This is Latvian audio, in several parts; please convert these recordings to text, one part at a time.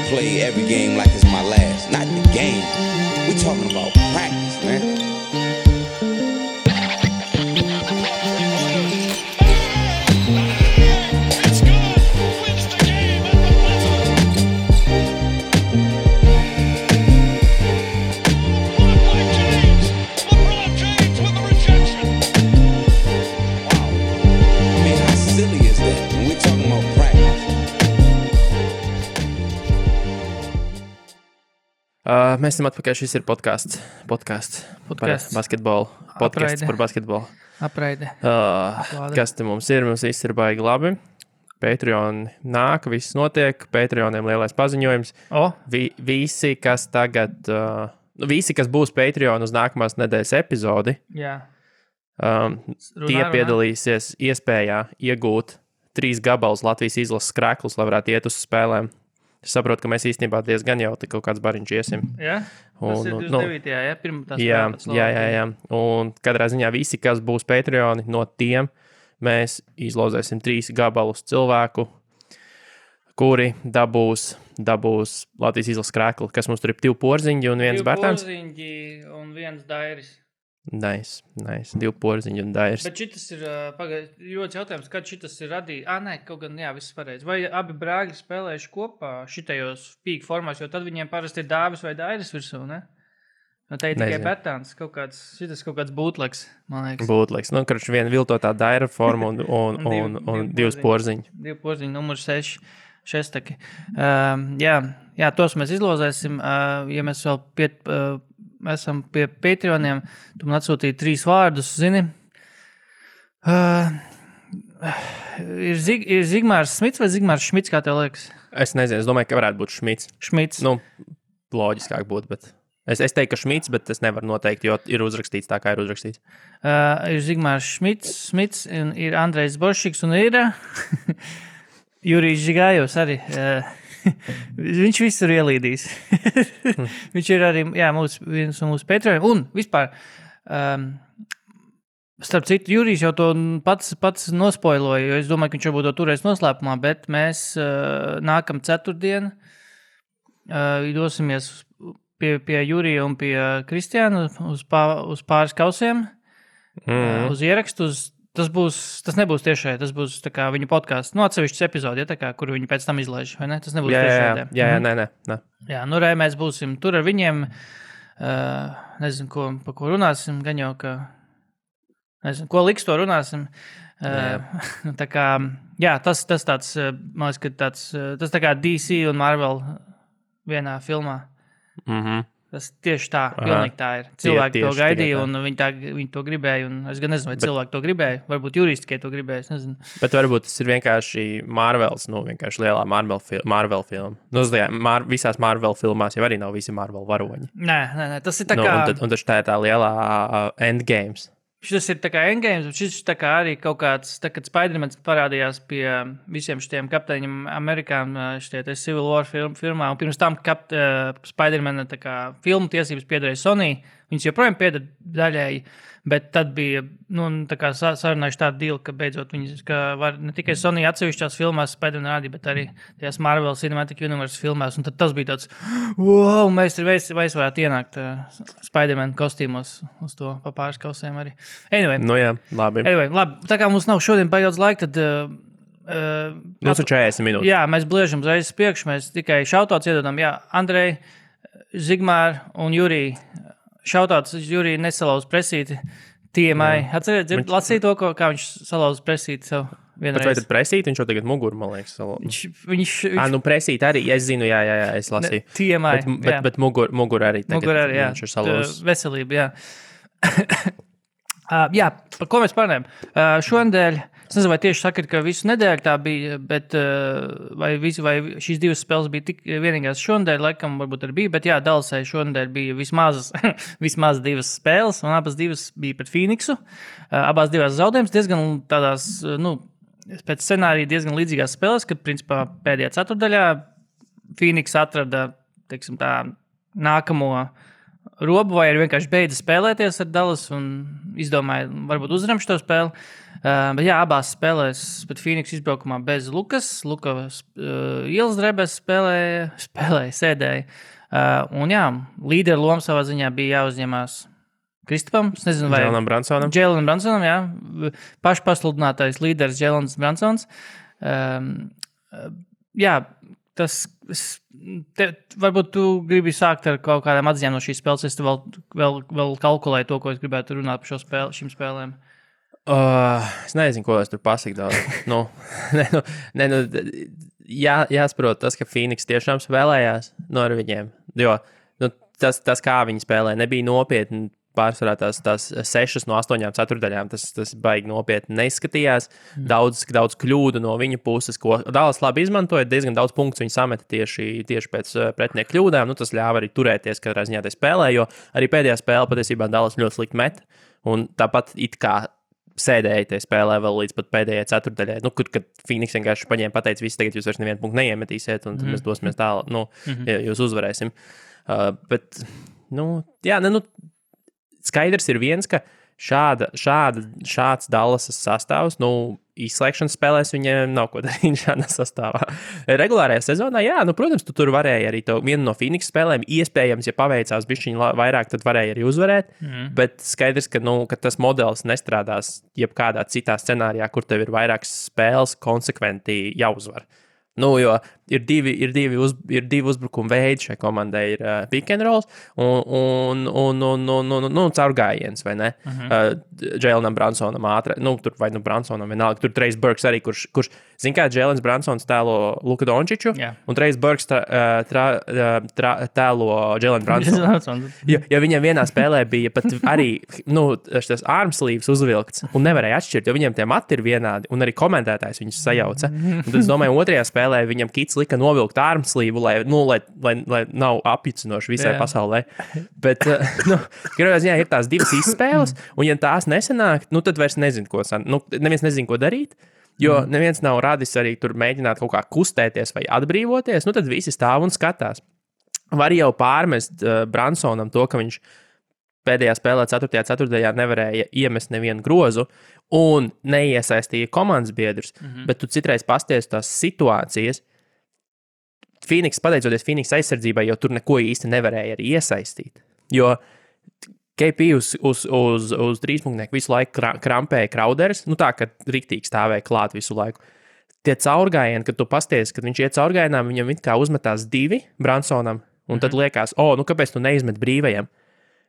play every game like it's my last. Not the game. We're talking about practice, man. Mēs esam atpakaļ, šis ir podcasts par basketbolu. Podcasts par basketbolu. Apraide. Kas te mums ir? Mums viss ir baigi labi. Patreon nāk, viss notiek. Patreoniem lielais paziņojums. Visi, kas tagad, visi, kas būs Patreon uz nākamās nedēļas epizodi, tie piedalīsies iespējā iegūt 3 gabalus Latvijas izlases krēklus, lai varētu iet uz spēlēm. Es saprotu, ka mēs īstenībā diezgan jau kaut kāds bariņš iesim. Jā? Tas ir 29. Pirmā spēlē. Jā. Un katrā ziņā visi, kas būs Patreoni, no tiem mēs izlozēsim 3 gabalus cilvēku, kuri dabūs Latvijas izlases krēklu, kas mums tur ir 2 porziņi un 1 bērtāns. 2 porziņi un 1 dairis. Nice. 2 porziņi un dairis. Bet šitas ir, ļoti jautājums, kad šitas ir radījis? Nē, kaut gan, jā, viss pareizi. Vai abi brāļi spēlējuši kopā šitajos pīk formās, jo tad viņiem parasti ir dāvis vai dairis virsū, ne? No te ir tikai bērtāns, šitas kaut kāds būtleks, man liekas. Būtleks. Nu, karš viena viltotā daira forma un 2 porziņi. 2 porziņi, numur 6. Šestaki. Jā, tos mēs izlozēsim. Ja mēs vēl esam pie Patreoniem, tu man atsūtīji 3 vārdus, zini. Ir Zigmārs Smits vai Zigmārs Šmits, kā tev liekas? Es nezinu, es domāju, ka varētu būt Šmits. Šmits. Nu, loģiskāk būt, bet es teiktu, ka Šmits, bet es nevaru noteikt, jo ir uzrakstīts tā, kā ir uzrakstīts. Ir Zigmārs Smits, un ir Andrejs Boršiks, un ir Jurijs Žigājos arī. Viņš visur ielīdīs. Viņš ir arī viens no mūsu Patreoniem. Un vispār, starp citu, Jurijs jau to pats nospoiloja, jo es domāju, ka viņš varbūt to turēs noslēpumā, bet mēs nākam ceturtdien dosimies pie Jurija un pie Kristiāna uz pāris kausiem, uz ierakstu, Tas nebūs tiešai, tas būs tā kā viņu podcasts, atsevišķs epizodi, kuru viņi pēc tam izlaiž, vai ne? Tas nebūs tiešai. Jā, nē. Jā, mēs būsim tur ar viņiem, nezinu, pa ko runāsim, gan jau, ka, nezinu, ko liks to runāsim. Tā kā, jā, tas tāds, man liekas, ka tas tā kā DC un Marvel vienā filmā. Tas tieši tā, pilnīgi tā ir. Cilvēki to gaidīja, un viņi to gribēja, un es gan nezinu, vai cilvēki to gribēja. Varbūt Jurijs tikai to gribēja, es nezinu. Bet varbūt tas ir vienkārši Marvels, vienkārši lielā Marvel filma. Visās Marvel filmās jau arī nav visi Marvel varoņi. Nē, tas ir tā kā... Un taču tā ir tā lielā Endgames. Šis ir tā kā Endgames, šis tā kā arī kaut kāds, tā kad Spider-Mans parādījās pie visiem šitiem kapteiņiem Amerikām, šitie Civil War filmā, un pirms tam Spider-Mana tā kā filmu tiesības piederēja Sony, viņas joprojām pieder daļēji, bet tad bija, tā kā sarunājuši tādu deal, ka beidzot viņas, ka var ne tikai Sony atsevišķās filmās Spider-Man rādīja, bet arī tajās Marvel Cinematic Universe filmās, un tad tas bija tāds, wow, mēs varētu ienākt Spider-Man kostīmos uz to pa pāris kausiem arī. Anyway. Nu jā, labi. Tā kā mums nav šodien daudz laika, tad... Mums ir 40 minūtes. Jā, mēs bliežam uzreiz priekšu, mēs tikai šautauts iedodam, Andrej, Zigmār un Jurij. Šautauts Jurij nesalauz presīti TMI. Atcerēt, lasīja to, kā viņš salauz presīti sev vienreiz. Bet vai tad presīti? Viņš jau tagad muguru, man liekas, salauz. Presīti arī, es zinu, jā, es lasīju. TMI, bet muguru arī tagad. Muguru arī, jā. Viņš ir salauz. Veselība, jā. Jā, par ko mēs parunājam? Šonedēļ, es nezinu, vai tieši sakat, ka visu nedēļu tā bija, bet vai šīs 2 spēles bija tik vienīgās šonedēļ, laikam varbūt arī bija, bet jā, Dallasai šonedēļ bija vismaz 2 spēles, un abas 2 bija pret Phoenixu. Abās 2 zaudējums diezgan tādās, pēc scenārija diezgan līdzīgās spēles, kad, principā, pēdējā ceturdaļā Phoenix atrada, teiksim tā, nākamo robu, vai arī vienkārši beidza spēlēties ar Dallas un izdomāja, varbūt uzvaram šo spēli. Bet jā, abās spēlēs, bet Phoenix izbraukumā bez Lukas. Lukas ielas drebēs sēdēja. Un jā, līderu lomu savā ziņā bija jāuzņemās Kristupam. Es nezinu, vai Jēlenam Bransonam, jā. Pašpasludinātais līderis Jēlens Bransons. Jā, varbūt tu gribi sākt ar kaut kādām atziņām no šīs spēles. Es vēl kalkulēju to, ko es gribētu runāt par šīm spēlēm. Es nezinu, ko es tur pasaku daudz. Jāsaprot tas, ka Phoenix tiešām spēlējās ar viņiem. Jo tas, kā viņi spēlē, nebija nopietni. Pārsvarā tās 6 no 8 ceturdaļām, tas baigi nopietni neizskatījās. Daudz kļūdu no viņa puses, ko Dallas labi izmantoja, diezgan daudz punktu viņi sameta tieši pēc pretinieku kļūdām. Tas ļāva arī turēties katrā ziņā tajā spēlē, jo arī pēdējā spēle patiesībā Dallas ļoti slikti met. Un tāpat it kā sēdēja tajā spēlē vēl līdz pat pēdējai ceturdaļai, kad Phoenix vienkārši paņēma pateica, visi tagad jūs vairs nevienu punktu neiemetīsiet, un tad mēs dosimies tālāk, ja jūs uzvarēsim. Skaidrs ir viens, ka šāds Dallasas sastāvs, izslēgšanas spēlēs viņiem nav ko darīt šādā sastāvā. Regulārajā sezonā, protams, tu tur varēji arī vienu no Phoenix spēlēm, iespējams, ja paveicās bišķiņ vairāk, tad varēja arī uzvarēt, bet skaidrs, ka tas modelis nestrādās jebkādā citā scenārijā, kur tev ir vairākas spēles konsekventi jāuzvar. Jo ir divi uzbrukuma veidi šai komandai. Ir pick and rolls un caurgājiens, vai ne? Jēlenam Bransonam ātri, Bransonam vienalga. Tur Trejs Burks arī, kurš zin kā, Jēlens Bransons tēlo Luka Dončiču, un Trejs Burks tēlo Jēlenu Bransonu. Jo viņam vienā spēlē bija pat arī, šis armslīvs uzvilkts, un nevarēja atšķirt, jo viņiem tie mati ir vienādi, un arī komentētājs viņus sajauca. Un tad es domāju, otrajā spēlē viņam Kits lika novilkt armslīvu, lai nav apjucinoši visai pasaulē. Bet, gribētu ziņā, ir tās divas izspēles, un ja tās nesanāk, tad vairs nezinu, neviens nezinu, ko darīt, jo neviens nav radis arī tur mēģināt kaut kā kustēties vai atbrīvoties, tad visi stāv un skatās. Var jau pārmest Bransonam to, ka viņš pēdējā spēlē 4. ceturtajā nevarēja iemest nevienu grozu un neiesaistīja komandas biedrus, bet tu citreiz pasties tās situācijas. Pateicoties Phoenix aizsardzībai, jo tur neko īsti nevarēja arī iesaistīt. Jo KP uz trīspunktnieku visu laiku krampēja Crowders, tā, ka riktīgi stāvēja klāt visu laiku. Tie caurgājieni, kad tu pasties, kad viņš iet caurgājienām, viņam it kā uzmetās 2 Bransonam, un tad liekas, kāpēc tu neizmet brīvajam?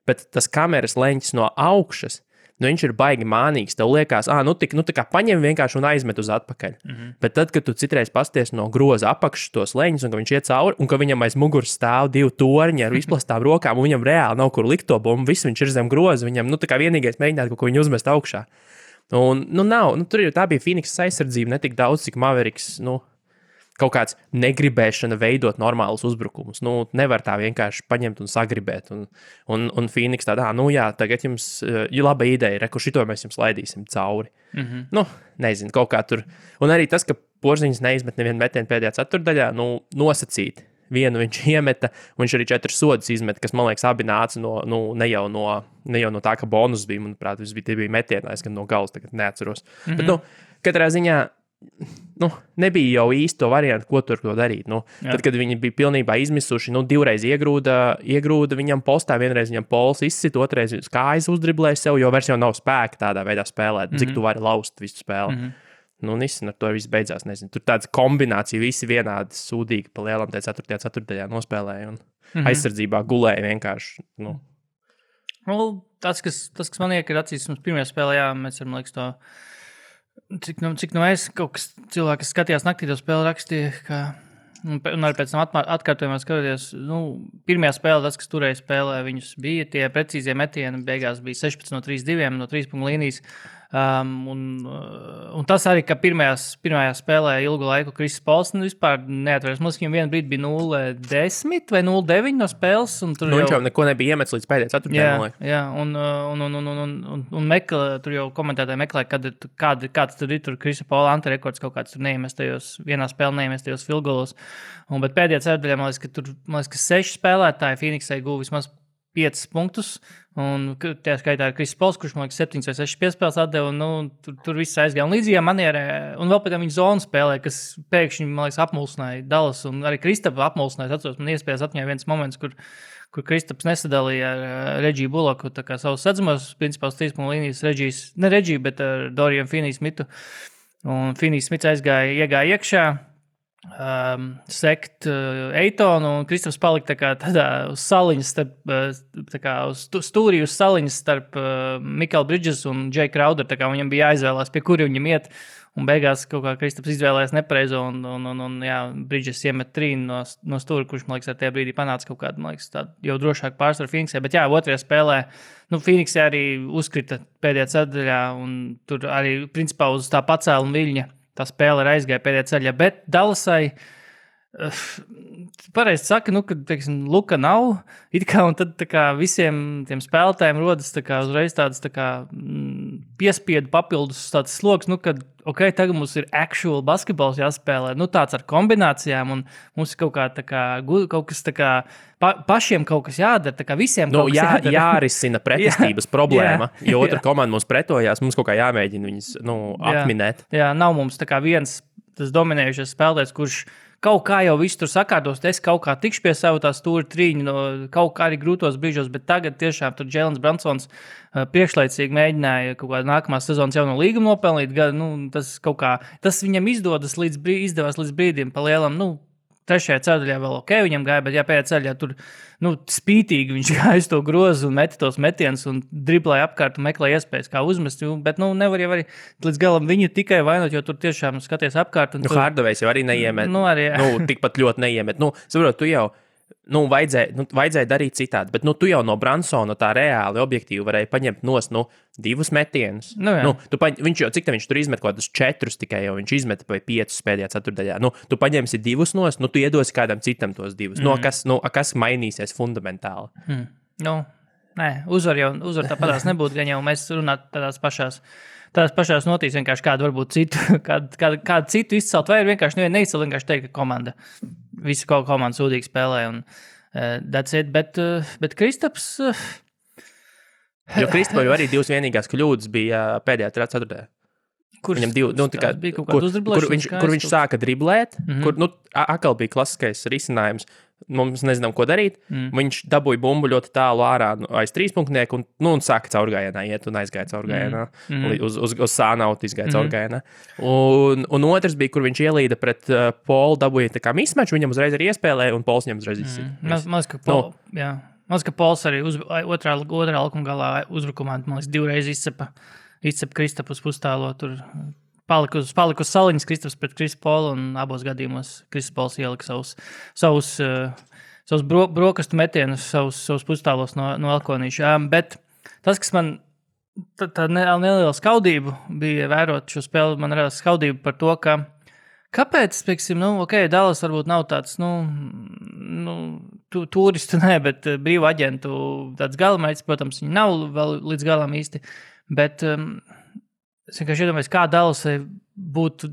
Bet tas kameras leņķis no augšas, viņš ir baigi mānīgs. Tev liekas, tā kā paņem vienkārši un aizmet uz atpakaļ. Bet tad, kad tu citreiz pasties no groza apakšas tos leņķus, un ka viņš iet cauri, un ka viņam aiz muguras stāv 2 torņi ar izplastām rokām, un viņam reāli nav kur likt to bumbu, viss viņš ir zem groza, viņam, tā kā vienīgais mēģināt kaut ko viņu uzmest augšā. Un, tā bija Phoenix aizsardzība, ne tik daudz, cik Mavericks, kaut kāds negribēšana veidot normālus uzbrukumus. Nevar tā vienkārši paņemt un sagribēt. Un Phoenix tādā, tagad jums ir laba ideja, kur šito mēs jums laidīsim cauri. Nezinu, kaut kā tur. Un arī tas, ka Porziņš neizmet nevienu metienu pēdējā ceturdaļā, nosacīt. Vienu viņš iemeta, un viņš arī 4 sodus izmeta, kas, man liekas, abi nāca ne jau no tā, ka bonus bija, manuprāt, tie bija metienais, gan no galas, tagad neatceros. Bet, katrā ziņā, nebija jau īsti to variantu, ko tur darīt. Tad, kad viņi bija pilnībā izmisuši, 2 reiz iegrūda viņam postā, vienreiz viņam pols izsit, otrais kājas uzdriblēja sev, jo vairs jau nav spēka tādā veidā spēlēt, cik tu vari laust visu spēli. Nesen ar to viss beidzās, nezinu. Tur tāds kombinācija, visi vienādi sūdīgi pa lielam tajā 4. ceturtajā nospēlēja un aizsardzībā gulēja vienkārši. Tas, kas man iekar acīs, mums pirmajā spēlē, mēs varam liekas to, cik es kaut kas cilvēki, kas skatījās naktī to spēli rakstīja, ka, un arī pēc tam atkārtojumā skatoties, pirmajā spēlē, tas, kas turēja spēlē, viņus bija tie precīzie metieni, beigās bija 16 no 3-2 no 3 punktu līnijas. Un tas arī, ka pirmajā spēlē ilgu laiku Kris Pols vispār neatvērās. Mums viņam vienu brīdi bija 0-10 vai 0-9 no spēles. Viņš jau neko nebija iemetis līdz pēdējai ceturtajai. Jā, un tur jau komentētāji meklē, kāds tur ir Krisa Pola antirekords kaut kāds tur vienā spēlē neiemestajos filgolos. Bet pēdējā ceturtajā, man liekas, ka 6 spēlētāji Phoenixai guva vismaz 5 punktus. Un tajā skaitā ir Kristis Pols, kurš man liekas 7 vai 6 piespēles atdeva. Tur viss aizgāja. Un līdzīgā manierē, un vēl pēc tam viņa zonu spēlē, kas pēkšņi, man liekas, apmulsināja Dallas. Un arī Kristapa apmulsināja. Atceros, man iespējas atņēma viens moments, kur Kristaps nesadalīja ar Reģiju Buloku savus sadzamos, principā uz 3 punktu līnijas ne Reģiju, bet ar Dorian Finney-Smithu. Un Finney-Smits iegāja iekšā. Sekt Eitonu un Kristaps palika tādā uz saliņas uz stūrī uz saliņas starp Mikael Bridges un Jay Crowder, viņam bija jāizvēlās, pie kuri viņam iet, un beigās kaut kā Kristaps izvēlējās nepareizo un Bridges iemet trīnu no stūra, kurš, man liekas, ar tajā brīdī panāca kaut kādu, man liekas, tādu jau drošāku pārsvaru Phoenixē, bet otrajā spēlē, Phoenixē arī uzkrita pēdējā ceturtajā, un tur arī, principā, uz tā pacēla un viļņa tā spēle aizgāja pēdējā ceļā, bet Dallasai pareizi saka, ka, teiksim, Luka nav, un tad visiem tiem spēlētājiem rodas uzreiz tāds piespiedu papildus tāds sloks, kad, tagad mums ir actual basketbols jāspēlē, tāds ar kombinācijām, un mums ir kaut kas pašiem kaut kas jādara, visiem kaut kas jādara. Jārisina pretestības problēma, jo otra komanda mums pretojās, mums kaut kā jāmēģina viņas, atminēt. Jā, nav mums viens tas dominējušais spēlētājs, kurš kaut kā jau viss tur sakārtos, es kaut kā tikšu pie savu tā stūra trīņu, kaut kā arī grūtos brīžos, bet tagad tiešām tur Jēlens Bransons priekšlaicīgi mēģināja kaut kādu nākamās sezonas jauno līgumu nopelnīt, tas viņam izdevās līdz brīdim pa lielam, trešajā ceļā vēl viņam gāja, bet pēdējā ceļā tur spītīgi viņš gāja to grozu un meta tos metienus un driblēja apkārt un meklēja iespējas, kā uzmest, bet nevar jau arī līdz galam viņu tikai vainot, jo tur tiešām skaties apkārt. Hardovejs jau arī neiemet, tikpat ļoti neiemet. Saprot, tu jau vajadzēja darīt citādi, bet tu jau no Bransona tā reāli objektīvi varēja paņemt nost 2 metienus. Viņš jau, cik viņš tur izmet kaut kādus 4 tikai, jau viņš izmeta vai 5 pēdējā ceturtdaļā. Tu paņemsi 2 nost, tu iedosi kādam citam tos 2. Kas mainīsies fundamentāli? Nē, uzvar tāpatās nebūtu, gan jau mēs runātu tādās pašās notīs, vienkārši kādu varbūt citu, kādu citu izcelt, vai vienkārši neizcelt, vienkārši teikt, ka komanda, visi komanda sūdīgi spēlē, un that's it, bet Kristaps... Jo Kristapam jau arī 2 vienīgās kļūdas bija pēdējā ceturtajā. Viņam 2, kur viņš sāka driblēt, kur atkal bija klasiskais risinājums, mums nezinām, ko darīt. Viņš dabūja bumbu ļoti tālu ārā aiz 3 punktnieku un sāka caurgājienā iet un aizgāja caurgājienā. Uz sānautu izgāja caurgājienā. Un otrs bija, kur viņš ielīda pret Polu, dabūja tā kā mismaču, viņam uzreiz arī iespēlēja un Pols viņam uzreiz izsita. Maz, ka Pols arī otrā laukuma galā uzbrukumā, man liekas, 2 reizes izcep Kristapu uz pustālo, tur palika uz saliņas Kristaps pret Kristu Polu, un abos gadījumos Kristus Pols ielika savus brokastu metienus, savus pustālos no Elkonīša. Bet tas, kas man tā neliela skaudība bija vērot šo spēli, man radās skaudība par to, ka kāpēc, teiksim, Dallas varbūt nav tāds, turistu, bet brīvu aģentu tāds galamērķis, protams, viņi nav vēl līdz galam īsti, bet es vienkārši iedomājos, kā Dallasai būtu,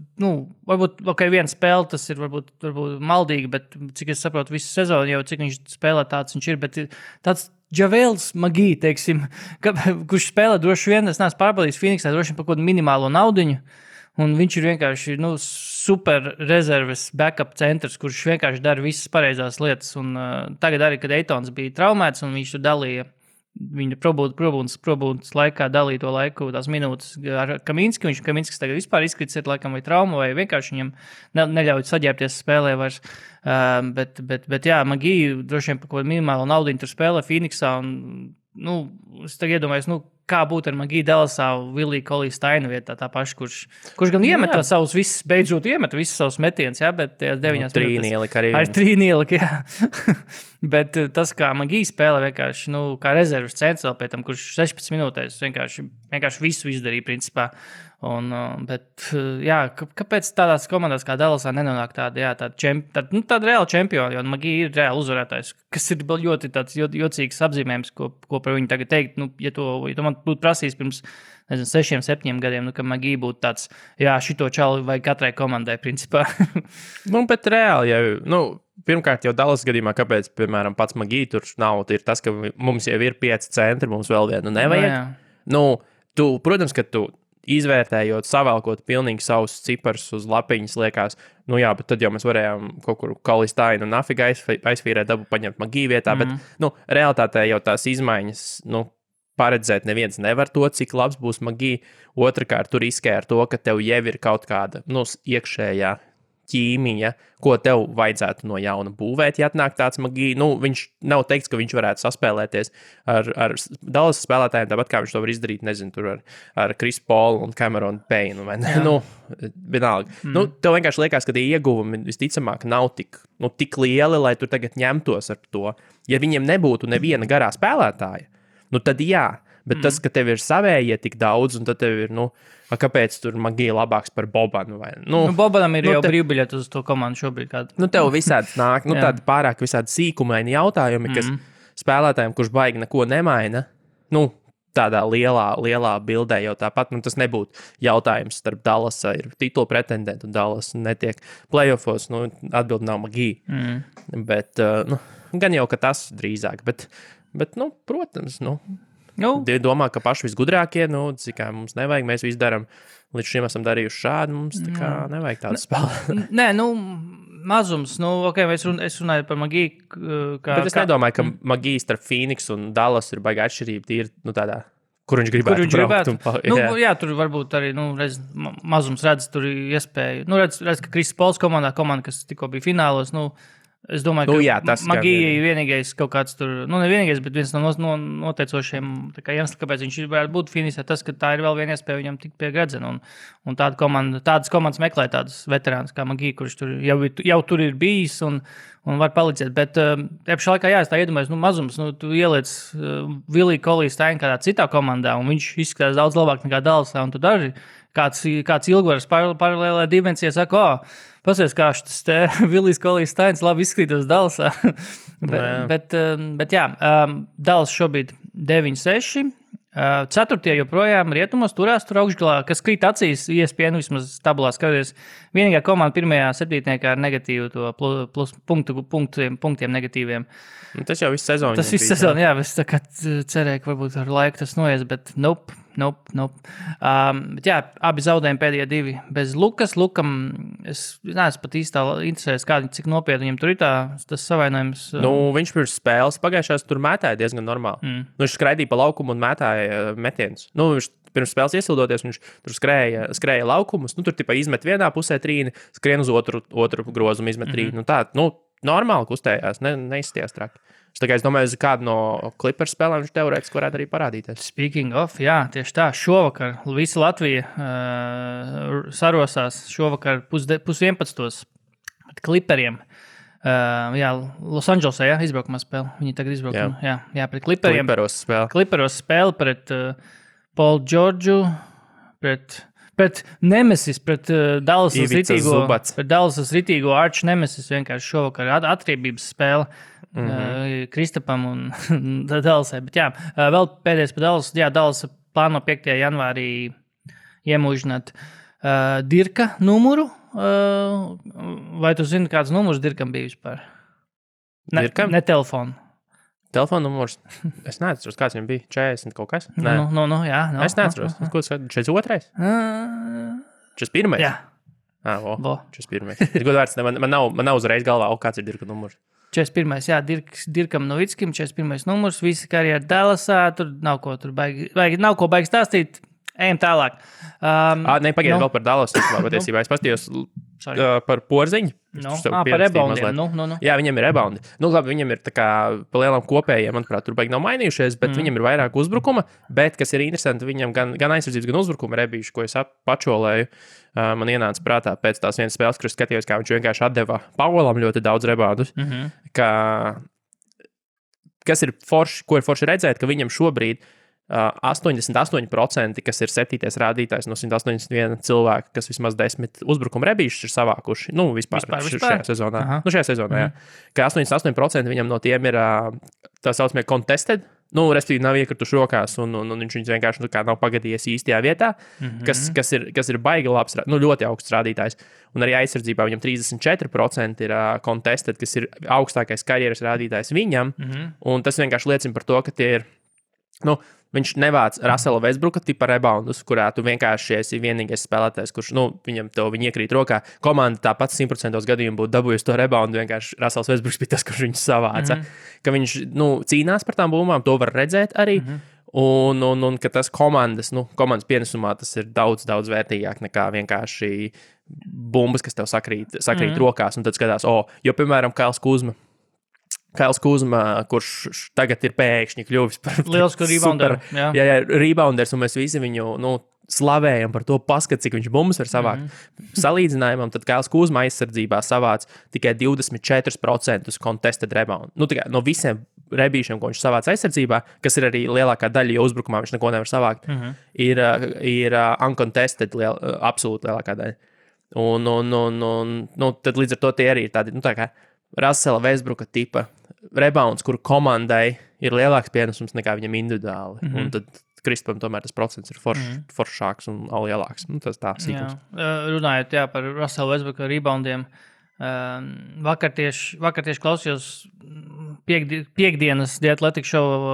varbūt, viena spēle, tas ir varbūt maldīgi, bet cik es saprotu visu sezonu, jau cik viņš spēlē tāds viņš ir, bet tāds Javels Magī, teiksim, kurš spēlē droši vien, es neesmu pārbaudījis Phoenixā, droši vien par kaut kādu minimālo naudiņu, un viņš ir vienkārši super rezerves backup centrs, kurš vienkārši dara visas pareizās lietas. Un tagad arī, kad Eitons bija traumēts un viņš tur dalīja, viņa probūdas laikā dalīja to laiku, tās minūtes ar Kaminski. Kaminskis tagad vispār izkrits ir laikam vai trauma, vai vienkārši viņam neļauj saģērbties spēlē vairs. Bet jā, Magī droši vien par kaut kādu minimālu naudiņu tur spēlē Phoenixā. Un, es tagad iedomājos, kā būtu ar Magī Dallasā Williju Koliju Steinu vietā, tā paša, kurš gan iemet savus visus, beidzot iemet visus savus metienus, bet tajās 9 trīnielika arī. Ar trīnielika, jā. Bet tas, kā Magī spēlē vienkārši, kā rezerves centrs vēl pēc tam, kurš 16 minūtēs vienkārši visu izdarīja, principā. Bet, jā, kāpēc tādās komandās kā Dallasā nenonāk tāda reāla čempiona, jo Magī ir reāli uzvarētājs, kas ir ļoti tāds jocīgs apzīmējums, ko par viņu tagad teikt, ja to man būtu prasījis pirms, 6, 7 gadiem, ka Magī būtu tāds, jā, šito čalu vai katrai komandai, principā. Bet reāli jau, pirmkārt, jau Dallas gadījumā, kāpēc, piemēram, pats Magī tur nav, ir tas, ka mums jau ir 5 centri, mums vēl vienu nevajag. Protams, ka tu izvērtējot, savēlkot pilnīgi savus ciparus uz lapiņas, liekas, bet tad jau mēs varējām kaut kur Kalistainu un Nafiga aizfīrēt, dabu paņemt Magī vietā, bet, realitātē jau tās izmaiņas, paredzēt neviens nevar to, cik labs būs Magī. Otrakārt, tur riskē ar to, ka tev jau ir kaut kāda, iekšējā ķīmija, ko tev vajadzētu no jauna būvēt, ja atnāk tāds Magī. Viņš nav teikts, ka viņš varētu saspēlēties ar Dallas spēlētājiem, tāpat kā viņš to var izdarīt, nezinu, tur ar Chris Paul un Cameron Payne, vai ne? Vienalga. Tev vienkārši liekas, ka tie ieguvumi visticamāk nav tik lieli, lai tu tagad ņemtos ar to. Ja viņiem nebūtu neviena garā spēlētāja, tad jā. Bet tas, ka tev ir savējie tik daudz, un tad tev ir, kāpēc tur Magija labāks par Bobanu? Bobanam ir jau brīvbiļeti uz to komandu šobrīd. Tev visādi nāk, tādi pārāk visādi sīkumaini jautājumi, kas spēlētājiem, kurš baigi neko nemaina, tādā lielā bildē jau tāpat, tas nebūtu jautājums starp Dallasa ir titula pretendentu, un Dallas netiek playoffos, atbildi nav Magija. Bet, gan jau, ka tas drīzāk, bet protams, domā, ka paši visgudrākie, cik mums nevajag, mēs visu darām, līdz šim esam darījuši šādi, mums tā kā nevajag tādu spēli. Nē, mazums, es runāju par Magiju. Bet es nedomāju, ka Magija starp Phoenix un Dallas ir baigā atšķirība, tīri, tādā, kur viņš gribētu braukt. Jā, tur varbūt arī, mazums redz, tur ir iespēja. Redz, ka Chris Pauls komanda, kas tikko bija finālos, es domāju, ka Magija ir vienīgais kaut kāds tur, ne vienīgais, bet viens no noteicošiem iemesliem, kāpēc viņš varētu būt finīsē, tas, ka tā ir vēl viena iespēja viņam tikt pie gredzena. Un tādas komandas meklē tādus veterānus kā Magija, kurš tur jau tur ir bijis un var palīdzēt. Bet pašā laikā, es tā iedomājos, mazums, tu ieliec Viliju Kolistainu kādā citā komandā, un viņš izskatās daudz labāk nekā Dallasā, un tu daži kāds ilgvaras paralēlē dimensijā saka, pasies, kā šis te Vilijs Kolistains labi izskatītos Dallasā. bet jā, Dallas šobrīd 9-6. 4. joprojām rietumos turās tur augšgalā, kas krīt acīs, ESPN vismaz tabulā skaties. Vienīgā komanda pirmajā septītniekā ar negatīvu to plus punktiem negatīviem. Tas jau viss sezonu. Tas viss sezonu, jā, es tā kā cerēju, ka varbūt ar laiku tas noies, bet nope. Bet jā, abi zaudējumi pēdējie 2 bez Lukas. Lukam, es neesmu pat īstā interesēs, cik nopietni viņam tur ir tas savainojums. Viņš pirms spēles pagājušās tur mētāja diezgan normāli. Viņš skraidīja pa laukumu un mētāja metienus. Viņš pirms spēles iesildoties, viņš tur skrēja laukumus. Tur tipā izmet vienā pusē trīni, skrien uz otru grozumu, izmet trīni. Normāli kustējās, neizstījās traki. Es domāju, kādu no Clippers spēlēm viņš teorētiski varētu arī parādīties. Speaking of, jā, tieši tā. Šovakar visa Latvija sarosās šovakar 10:30 pret Clipperiem. Jā, Losandželosā, izbraukumā spēle. Viņi tagad izbraukumā. Jā, pret Clipperiem. Clipperos spēle pret Paul Georgiu, pret Nemesis, pret Dallasas ritīgo arch Nemesis vienkārši šovakar atriebības spēle. Kristapam un Dallasai. Bet jā, vēl pēdējais par Dallas. Jā, Dallas plāno 5. janvārī iemūžināt Dirka numuru. Vai tu zini, kāds numurs Dirkam bija vispār? Dirkam? Ne telefonu. Telefona numurs? Es neatceros, kāds viņam bija. 40 kaut kas? Nē. Jā. Es neatceros. Ko tas 42? 41? Jā. 41. Ir godvārds, man nav uzreiz galvā, kāds ir Dirka numurs. 41. Jā, Dirkam Novickim, 41. numurs, visi karjera Dallasā, tur nav ko baigi stāstīt, ejam tālāk. Pagaid vēl par Dallasu, patiesībā es pastījos par Porziņu. Par reboundiem. Jā, viņam ir reboundi. Labi, viņam ir tā kā pa lielām kopējiem, manuprāt, tur baigi nav mainījušies, bet viņam ir vairāk uzbrukuma, bet, kas ir interesanti, viņam gan aizsardzības, gan uzbrukuma rebīši, ko es pačolēju. Man ienāca prātā pēc tās vienas spēles, kur skatījos, kā viņš vienkārši atdeva Paulam ļoti daudz reboundus. Kas ir forši, ko ir forši redzēt, ka viņam šobrīd 88%, kas ir 7. rādītājs no 181 cilvēku, kas vismaz 10 uzbrukuma rebīšus ir savākuši. Vispār. Šajā sezonā. Šajā sezonā, jā. Ka 88% viņam no tiem ir tā saucamie contested respektīvi nav iekrituši rokās, un viņš viņus vienkārši nav pagadījies īstajā vietā, kas ir baigi labs, ļoti augsts rādītājs. Un arī aizsardzībā viņam 34% ir contested, kas ir augstākais karjeras rādītājs viņam, un tas vienkārši liecina par to, ka tie ir, viņš nevāc Russella Westbrooka tipa reboundus, kurā tu vienkārši esi vienīgais spēlētājs, kurš, viņam viņi iekrīt rokā. Komanda tāpat 100% gadījumu būtu dabūjusi to reboundu, vienkārši Russells Westbrooks bija tas, kurš viņus savāca. Ka viņš, cīnās par tām bumbām, to var redzēt arī, un ka tas komandas pienesumā tas ir daudz, daudz vērtīgāk nekā vienkārši bumbas, kas tev sakrīt rokās, un tad skatās, jo, piemēram, Kails Kuzma, kurš tagad ir pēkšņi kļuvis par lielisku rebounderu. Jā, rebounders, un mēs visi viņu, slavējam par to paskat, cik viņš bumbas var savākt. Salīdzinājumam, tad Kails Kuzma aizsardzībā savāc tikai 24% contested rebound. No visiem rebīšiem, ko viņš savāc aizsardzībā, kas ir arī lielākā daļa, jo uzbrukumā viņš neko nevar savākt, ir uncontested absolūti lielākā daļa. Un tad līdz ar to tie arī ir tādi, tā kā Russella Westbrooka tipa rebounds, kuru komandai ir lielāks pienesums nekā viņam individuāli. Un tad Kristupam tomēr tas procents ir foršāks un lielāks. Tas tā sīkums. Runājot par Russella Westbrooka reboundiem, vakar tieši klausījos piekdienas The Athletic Show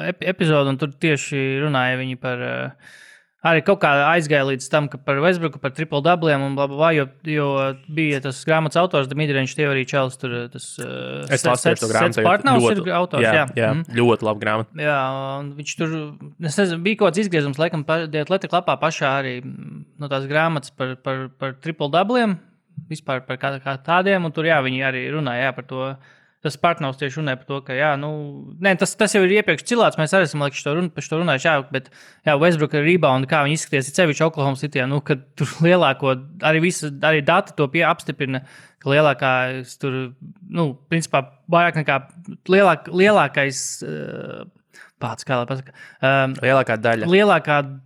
epizodu, un tur tieši runāja viņi par arī kaut kā aizgāja līdz tam, ka par Westbrooku, par triple-doubliem un blablabla, jo bija tas grāmatas autors, The Midrange Theory Čels, tur tas Sets Partners ir autors, jā. Ļoti labi grāmata. Jā, un viņš tur, es nezinu, bija kaut kāds izgriezums, laikam, The Athletic lapā pašā arī no tās grāmatas par triple-doubliem, vispār par kā tādiem, un tur, viņi arī runāja, par to. Tas partners tieši runāja par to, ka, tas jau ir iepriekš cilāts, mēs arī esam par šo runājuši, bet, Westbrooka rebound, kā viņi izskaties, ir sevišķi Oklahoma Cityjā, kad tur lielāko, arī dati to apstiprina, ka lielākais tur, principā, vairāk nekā lielākais, kā lai pasaka. Lielākā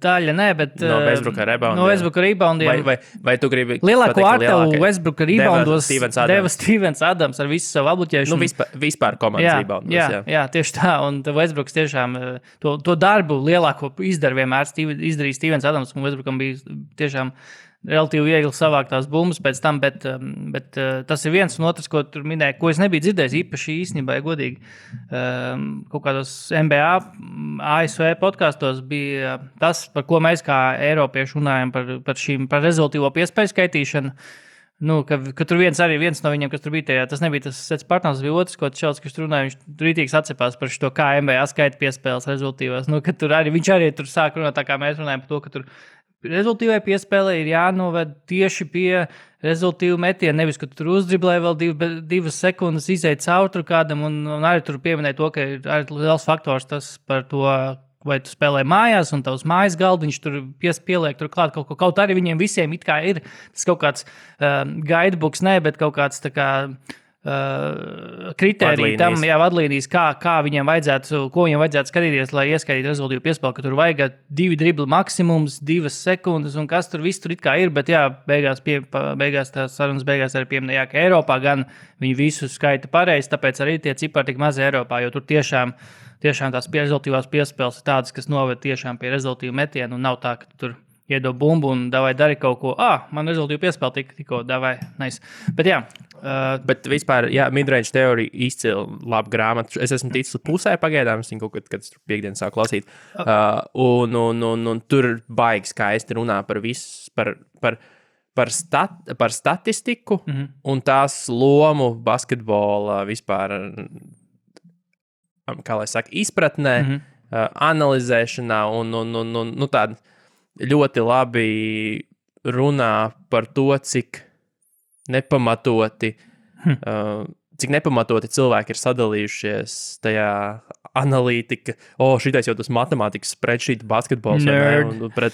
daļa, nē, bet no Westbrooka reboundiem. No Westbrooka reboundiem. Vai tu gribi lielāko artavu Westbrooka reboundos deva Stevens Adams ar visu savu apbuķēšanu. Vispār komandas reboundos. Jā, tieši tā. Un Westbrooks tiešām to darbu lielāko izdara vienmēr izdarīja Stevens Adams, un Westbrookam bija tiešām relatīvi viegli savākt tās bumbas pēc tam, bet tas ir viens un otrs, ko tur minēja, ko es nebiju dzirdējis īpaši īstenībā, godīgi. Kaut kādos NBA, ASV podkastos bija tas, par ko mēs kā Eiropieši runājam par rezultīvo piespēju skaitīšanu. Ka tur viens no viņiem, kas tur bija tajā, tas nebija tas Sets Partners, bija otrs, ko Čels, kas tur runāja, viņš tur rītīgs atcepās par šo, kā NBA skaita piespēles rezultīvās. Ka tur viņš arī tur sāk runāt, tā kā mēs runājam par to, ka tur rezultīvai piespēlē ir jānoved tieši pie rezultīvu metienu, nevis, ka tur uzdriblē vēl 2 sekundes izēt caur tur kādam, un arī tur pieminēja to, ka ir arī liels faktors tas par to, vai tu spēlē mājās, un tavs mājas galdiņš tur pieliek tur klāt kaut ko. Kaut arī viņiem visiem it kā ir tas kaut kāds guidebooks, bet kaut kāds tā kā kritērija tam, vadlīnijas, kā viņiem vajadzētu, ko viņiem vajadzētu skatīties, lai ieskaitītu rezultīvu piespēli, ka tur vajag 2 dribli maksimums, 2 sekundes, un kas tur viss tur it kā ir, bet beigās tās sarunas beigās arī pieminēja, ka Eiropā gan viņi visu skaita pareizi, tāpēc arī tie cipari tik mazi Eiropā, jo tur tiešām tās rezultīvās piespēles ir tādas, kas noved tiešām pie rezultīvu metienu, un nav tā, ka tu tur iedod bumbu un davai dari kaut ko. Man rezultīvu piespēle tikko davai. Nice. Bet jā. Bet vispār, Midrange Theory izcili labu grāmatu. Es esmu ticis pusē pagaidām, es viņu kaut kad piekdien sāku lasīt. Un tur baigi skaisti runā par visu, par statistiku un tās lomu basketbola vispār, kā lai saka, izpratnē, analizēšanā un tāda ļoti labi runā par to, cik nepamatoti cilvēki ir sadalījušies tajā analītika. Šitais jau tas matemātikas spreadsheet basketbols. Un pret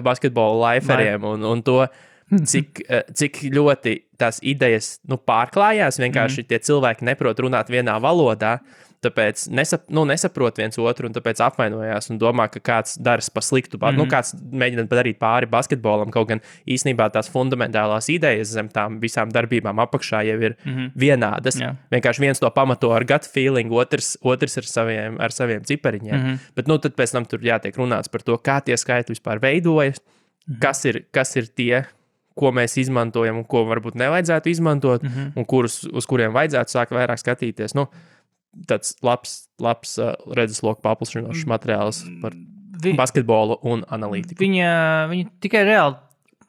basketbolu liferiem un to, cik ļoti tās idejas pārklājās. Vienkārši tie cilvēki neprot runāt vienā valodā. tāpēc nesaprot viens otru un tāpēc apvainojās un domā, ka kāds dara pa sliktu, kāds mēģina padarīt pāri basketbolam, kaut gan īstenībā tās fundamentālās idejas zem tām visām darbībām apakšā jau ir vienādas. Vienkārši viens to pamato ar gut feeling, otrs ar saviem cipariņiem. Bet tad pēc tam tur jātiek runāts par to, kā tie skaitļi vispār veidojas, kas ir tie, ko mēs izmantojam un ko varbūt nevajadzētu izmantot, un uz kuriem vajadzētu sākt vairāk skatīties. Tāds labs redzesloku paplašinošs materiāls par basketbolu un analītiku. Viņa tikai reāli,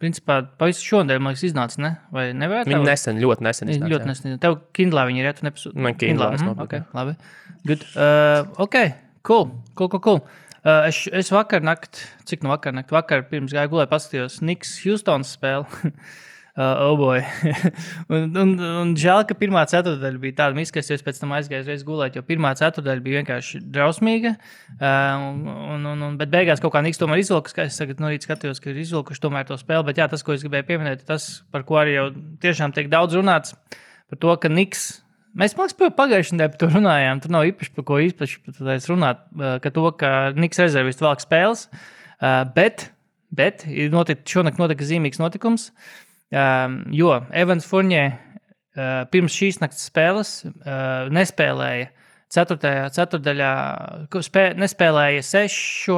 principā, pavisam šodien, man liekas, iznāca, ne? Vai nevarētu? Viņa ļoti nesen iznāca. Ļoti nesen. Tev Kindlā viņa ir, ja tu nepasūti? Man Kindlā es nopirku. Okay, labi. Good. Cool. Es vakar pirms gāju gulēt paskatījos Knicks Houstonas spēli. Oh boy. un žēl, ka pirmā ceturtdaļa bija tāda miska, es pēc tam aizgāju reiz gulēt, jo pirmā ceturtdaļa bija vienkārši drausmīga. Bet beigās kaut kā Knicks tomēr izvilka, es tagad no rīta skatījos, ka ir izvilkuši tomēr to spēli, bet jā, tas, ko es gribēju pieminēt, tas, par ko arī jau tiešām tiek daudz runāts, par to, ka Knicks mēs, man liekas, pagājušajā nedēļā par to runājām. Tur nav īpaši par ko runāt, ka Knicks rezervisti velk spēles. Bet šonakt notika zīmīgs notikums, jo Evans Fournier pirms šīs nakts spēles nespēlēja ceturtdaļā, nespēlēja 6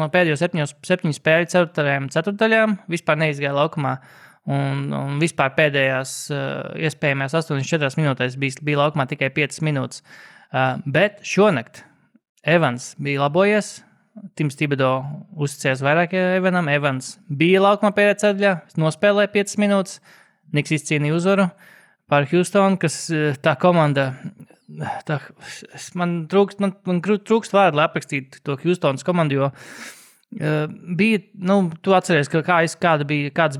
no pēdējo 7 spēļu ceturtdaļām, vispār neizgāja laukumā. Un vispār pēdējās iespējamās 84 minūtēs bija laukumā tikai 5 minūtes. Bet šonakt Evans bija labojies. Tims Thibodeau uzticējās vairāk Evanam. Evans bija laukumā pēdējā ceturtdaļā, nospēlēja 5 minūtes. Knicks izcīnīja uzvaru pār Houstonu, kas tā komanda... Man trūkst vārdu, lai aprakstītu to Houstonas komandu, jo bija, tu atceries, kādas bija tās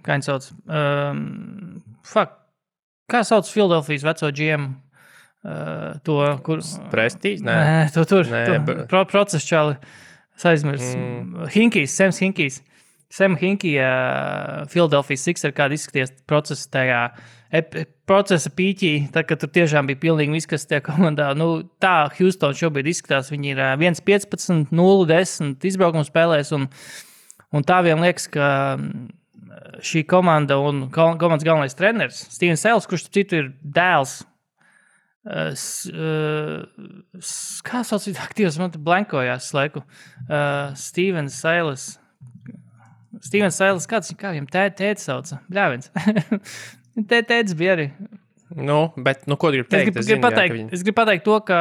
kā viņi sauc, kā sauc Philadelphijas veco GM, to, kur... Prestīs? Nē, process čali, aizmirs. Sams Hinkijs. Sam Hinkija, Philadelphia Sixers, kāda izskaties procesa tajā procesa pīķī, tā, ka tur tiešām bija pilnīgi viss, kas tajā komandā. Tā Houston šobrīd izskatās, viņi ir 1-15, 0-10 izbraukumu spēlēs, un tā vien liekas, ka šī komanda un komandas galvenais treneris, Stevens Silas, kurš citu ir dēls, kā sauc aktīvs, man te blankojās laiku, Stevens Silas, kā viņam tēti sauca? Bļāviens. Tētis bija arī. Bet, ko gribu teikt? Es gribu pateikt to, ka...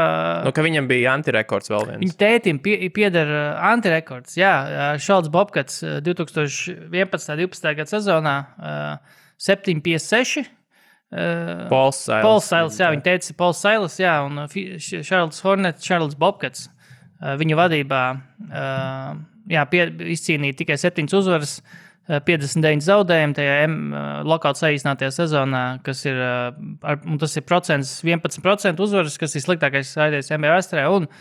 ka viņam bija antirekords vēl viens. Viņa tētim pieder antirekords, jā. Šalds Bobkats 2011.12. gada sezonā 7-56. Pauls Silas, jā. Viņa tētis ir Pauls Silas, jā. Un Charles Hornets, Charles Bobkats viņa vadībā izcīnīja tikai 7 uzvaras, 59 zaudējumi tajā lokāli saīsinātajā sezonā, kas ir, tas ir 11% uzvaras, kas ir sliktākais aizies NBA vēsturē. Un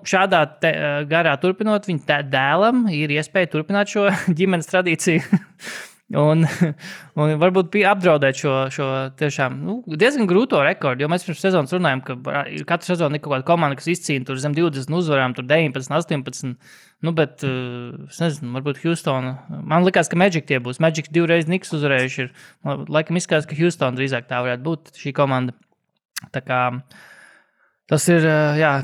šādā garā turpinot, viņa dēlam ir iespēja turpināt šo ģimenes tradīciju. Un varbūt apdraudēt šo tiešām diezgan grūto rekordu, jo mēs pirms sezonas runājam, ka katru sezonu ir kaut kāda komanda, kas izcīna tur zem 20 uzvarām, tur 19, 18, bet es nezinu, varbūt Houstona. Man likās, ka Magic tie būs. Magic 2 reizes Knicks uzvarējuši ir. Laikam izskatās, ka Houstona drīzāk tā varētu būt šī komanda. Tā kā tas ir,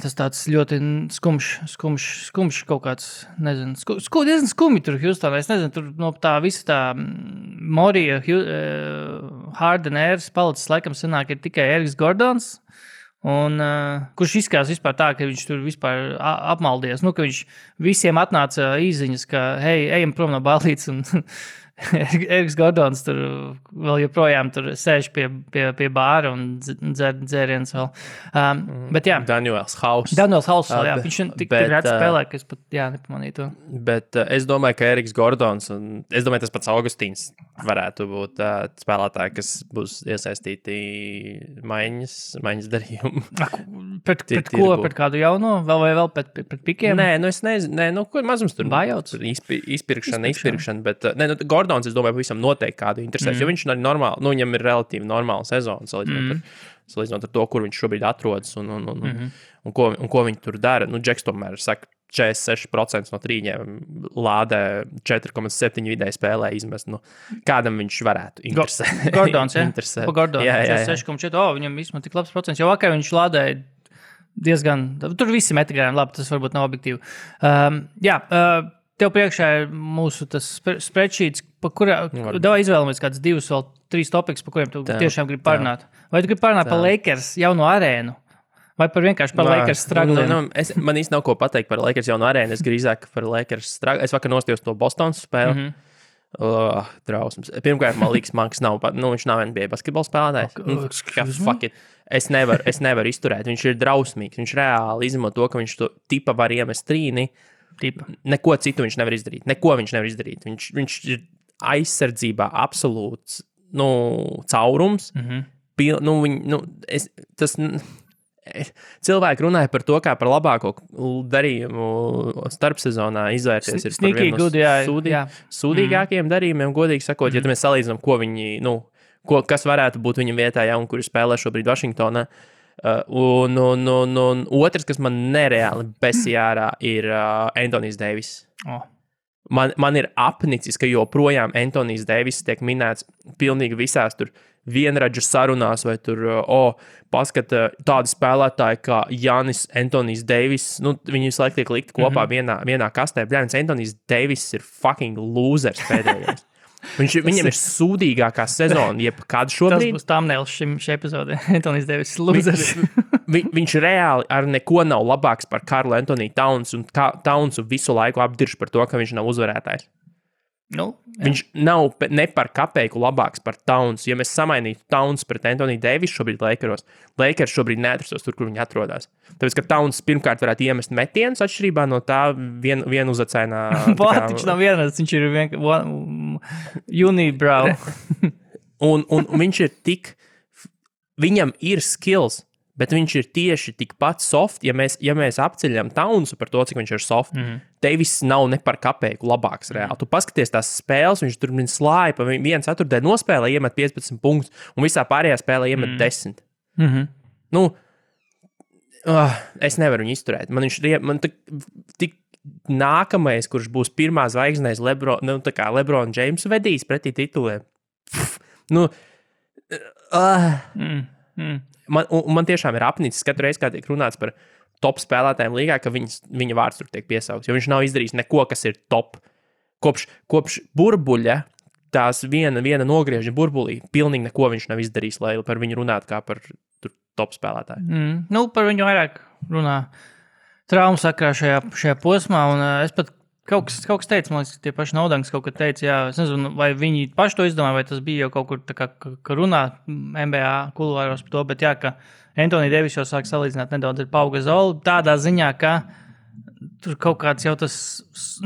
tas tāds ļoti skumš kaut kāds, nezinu, diezgan skumji tur Houstonā. Es nezinu, tur no tā visa tā Morija, Harden ēras palicis laikam sanāk ir tikai Eriks Gordons, un kurš izskatās vispār tā, ka viņš tur vispār apmaldies. Ka viņš visiem atnāca īziņas, ka hei, ejam prom no ballītes, un Eriks Gordons tur vēl joprojām tur sēž pie bāra un dzer dzēriens vēl. Bet jā. Daniels Hauss, jā. Viņš tik rēt spēlē, ka es pat, nepamanīju to. Bet es domāju, ka Eriks Gordons un es domāju, tas pats Augustīns varētu būt spēlētāji, kas būs iesaistīti maiņas darījumu. Pret ko? Pret kādu jauno? Vēl pret pikiem? Nē, es nezinu. Ko mazums tur? Bājauts? Izpirkšana, bet Gordons, es domāju, pavisam noteikti kādu interesēs, jo viņš ir normāli, viņam ir relatīvi normāla sezona, salīdzinot ar to, kur viņš šobrīd atrodas un ko viņi tur dara. Džeks tomēr saka, 46% no trīņiem lādē 4,7 vidēji spēlē izmest. Kādam viņš varētu interesēt? Gordons, ja? Pa Gordons, 6,4. Viņam vismaz tik labs procents. Jau vakar viņš lādēja diezgan... Tur visi metrigājumi, labi, tas varbūt nav objektīvi. Tev priekšā ir mūsu tas spreadsheets, pa kurā... Davai izvēlamies kāds 2 vēl 3 topiks, pa kuriem tu tiešām gribi parunāt. Vai tu gribi parunāt par Lakers jauno arēnu? Vai vienkārši par Lakers stragliem? Man īsti nav ko pateikt par Lakers jaunu arēnu. Es drīzāk par Lakers stragliem. Es vakar nostījos to Bostonas spēli. Drausmas. Pirmkārt, man liekas, Manks nav, viņš nav NBA basketbola spēlētājs. Fuck it. Es nevaru izturēt. Viņš ir drausmīgs. Viņš reāli izmanto to, ka viņš to tipa var iemest trīni. Neko citu viņš nevar izdarīt. Viņš ir aizsardzībā absolūts caurums. Cilvēki runāja par to, kā par labāko darījumu starpsezonā izvērties ir par vienu no sūdīgākajiem darījumiem, godīgi sakot, ja mēs salīdzinām, ko viņi, kas varētu būt viņa vietā, un kuri spēlē šobrīd Vašingtonā. Un otrs, kas man nereāli besīja ārā, ir Anthony's Davis. Man ir apnicis, ka joprojām Anthony's Davis tiek minēts pilnīgi visās tur vienradžu sarunās, vai tur, paskata tādi spēlētāji kā Giannis, Anthony's Davis, viņi visu laiku tiek likti kopā vienā kastē. Bļāns, Anthony's Davis ir fucking losers pēdējais. Viņam ir sūdīgākā sezona, jebkad šobrīd. Tas būs thumbnails šī epizode. Anthony's Davis ir losers. Viņš reāli ar neko nav labāks par Karlu Anthony Towns, un Townsu visu laiku apdirž par to, ka viņš nav uzvarētājs. Viņš nav ne par kapeiku labāks par Towns. Ja mēs samainītu Towns pret Anthony Davis šobrīd Lakers šobrīd neatrastos tur, kur viņi atrodas. Tāpēc, ka Towns pirmkārt varētu iemest metienus atšķirībā no tā vienu uzacainā... Viņš nav vienas, viņš ir unibrow. un viņš ir tik... Viņam ir skills, bet viņš ir tieši tikpat soft, ja mēs apceļam Townsu par to, cik viņš ir soft. Davis nav ne par kapeiku labāks reāli. Tu paskaties tās spēles, viņš tur slāja pa 1/4 nospēlē, iemet 15 punktus, un visā pārējā spēlē iemet 10. Es nevaru viņu izturēt. Man tik nākamais, kurš būs pirmā zvaigznēs LeBron James vedīs pretī tituliem. Man tiešām ir apnicis katru reizi, kā tiek runāts par top spēlētājiem līgā, ka viņa vārds tur tiek piesaukts, jo viņš nav izdarījis neko, kas ir top. Kopš burbuļa, tās viena nogrieža burbulī, pilnīgi neko viņš nav izdarījis, lai par viņu runātu kā par top spēlētāju. Par viņu vairāk runā traumu sakrā šajā posmā, un es pat kaut kas teica, man liekas, tie paši Naudanks kaut kad teica, es nezinu, vai viņi paši to izdomāja, vai tas bija jau kaut kur tā kā runā NBA kuluāros par to, bet ka Anthony Davis jau sāk salīdzināt nedaudz ar Pau Gasolu, tādā ziņā, ka tur kaut kāds jau tas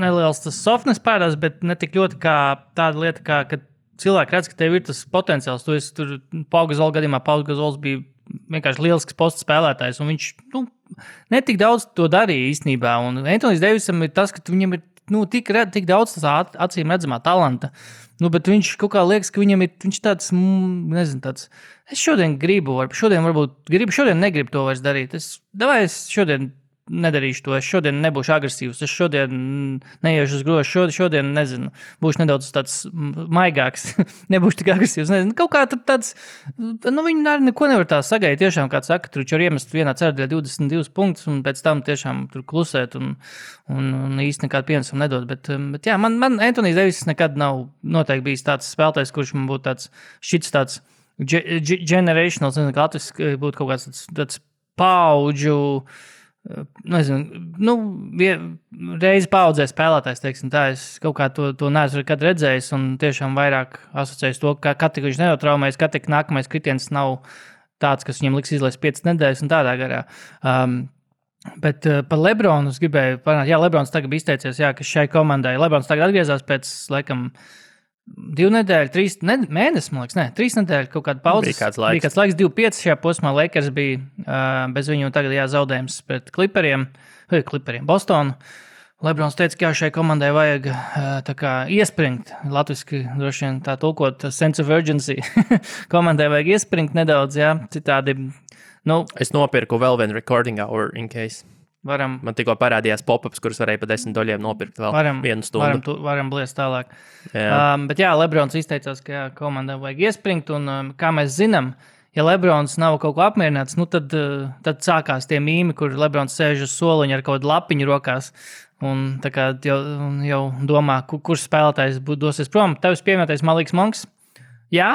neliels tas softness pērās, bet ne tik ļoti kā tāda lieta, ka cilvēki redz, ka tev ir tas potenciāls. Tu esi tur Pau Gasola gadījumā, Pau Gasols bija vienkārši lielisks posta spēlētājs, un viņš netik daudz to darīja īstenībā, un Anthony's Davisam ir tas, ka viņam ir tik daudz tas acīm redzamā talanta, bet viņš kaut kā liekas, ka viņš tāds, nezinu, tāds, es šodien negribu to vairs darīt, es šodien nedarīšu to, es šodien nebūšu agresīvs, es šodien neiešu uz grozu, šodien, nezinu, būšu nedaudz tāds maigāks, nebūšu tik agresīvs, nezinu, kaut kā tāds, viņi arī neko nevar tā sagaidīt, tiešām, kā saka, tur var iemest vienā ceturtajā 22 punktus, un pēc tam tiešām tur klusēt, un īsti nekādu pienesumu nedod, bet jā, man Anthony Davis nekad nav noteikti bijis tāds spēlētājs, kurš man būtu tāds, šits tāds generational, nezinu, kā latviski būtu kaut kāds tāds paudžu, nezinu, reizi paudzē spēlētājs, teiksim tā, es kaut kā to neesmu nekad redzējis un tiešām vairāk asociējis to, ka katru viņš neotraumējas, katru nākamais kritiens nav tāds, kas viņam liks izlaist 5 nedēļas un tādā garā. Bet par Lebronu es gribēju parunāt, Lebrons tagad bija izteicies, ka šai komandai, Lebrons tagad atgriezās pēc, laikam, 2 nedēļu, 3 mēnesi, man liekas, 3 nedēļu kaut kāda pauzes. Bija kāds laiks 2-5 šajā posmā, Lakers bija bez viņu tagad zaudējums pret Clipperiem, Bostonu. Lebrons teica, ka šai komandai vajag tā kā iespringt, latviski droši vien tā tulkot sense of urgency. Komandai vajag iespringt nedaudz, jā, citādi, Es nopirku vēl vienu recording hour in case. varam Man tikko parādījās pop-ups, kurus varēja pa $10 nopirkt vēl vienu stundu. Varam bliest tālāk. Jā. Bet jā, Lebrons izteicās, ka jā, komandai vajag iespringt, un kā mēs zinām, ja Lebrons nav kaut ko apmierināts, tad sākās tie mīmi, kur Lebrons sēž uz soliņa ar kaut kādu lapiņu rokās, un tā kā jau domā, kurš spēlētājs dosies prom. Tevis pieminētais Maliks Monks? Jā,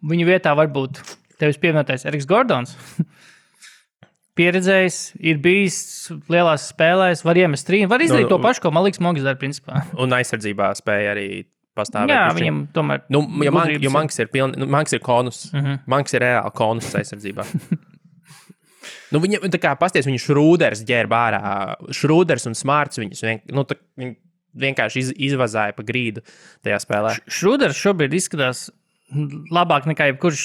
viņu vietā varbūt tevis pieminētais Eriks Gordons. Pieredzējis, ir bijis lielās spēlēs, var iemest trīnu, var izdarīt to pašu, ko Maliks Monks dara, principā. Un aizsardzībā spēja arī pastāvēt. Jā, viņam tomēr... Jo Manks ir Manks ir konus. Manks ir reāli konus aizsardzībā. Viņam, tā kā pasties, viņu Šrūders ģērba ārā. Šrūders un Smarts viņus vienkārši izvazāja pa grīdu tajā spēlē. Šrūders šobrīd izskatās labāk nekā jebkurš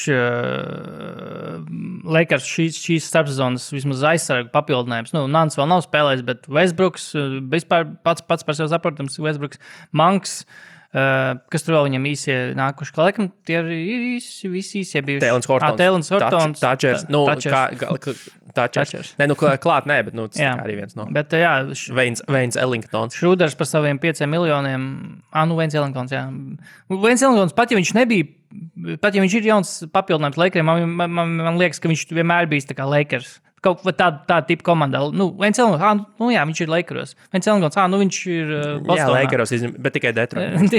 Lakers šīs starpsezonas vismaz aizsargu papildinājums. Nants vēl nav spēlējis, bet Westbrooks, vispār pats par sevi saprotams, Westbrooks, Manks, kas tur vēl viņam īsie nākuši, ka laikam tie ir visi īsie bijuši. Tēlins Hortons. Thatchers. Nē, klāt nē, bet tas arī viens no. Bet jā. Veins Ellingtons. Šrūders par saviem 5 miljoniem. Veins Ellingtons, jā. Veins Ellingtons, pat ja viņš nebija, pat ja viņš ir jauns papildinājums Lakeriem, man liekas, ka viņš vienmēr bijis tā kā Lakers. Kaut kā tāda tipa komandā. Veins Ellingtons, viņš ir Lakeros. Veins Ellingtons, viņš ir Bostonā. Jā, Lakeros, bet tikai Detroit.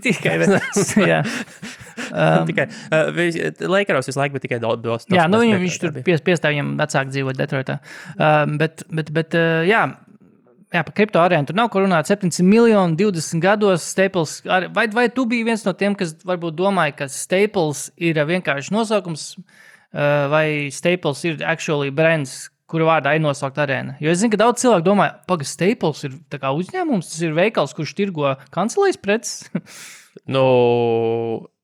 Tikai, jā. Tikai Lakeros visu laiku, bet tikai Bostonā. Jā, viņš tur piestāv viņam vecāk dzīvot Detroitā. Bet jā, par kripto arēnu tur nav ko runāt. 700 miljoni 20 gados Staples. Vai tu biji viens no tiem, kas varbūt domāja, ka Staples ir vienkārši nosaukums, vai Staples ir actually brands, kura vārdā ir nosaukt arēna? Jo es zinu, ka daudz cilvēku domā, Staples ir tā kā uzņēmums, tas ir veikals, kurš tirgo kancelējas preces.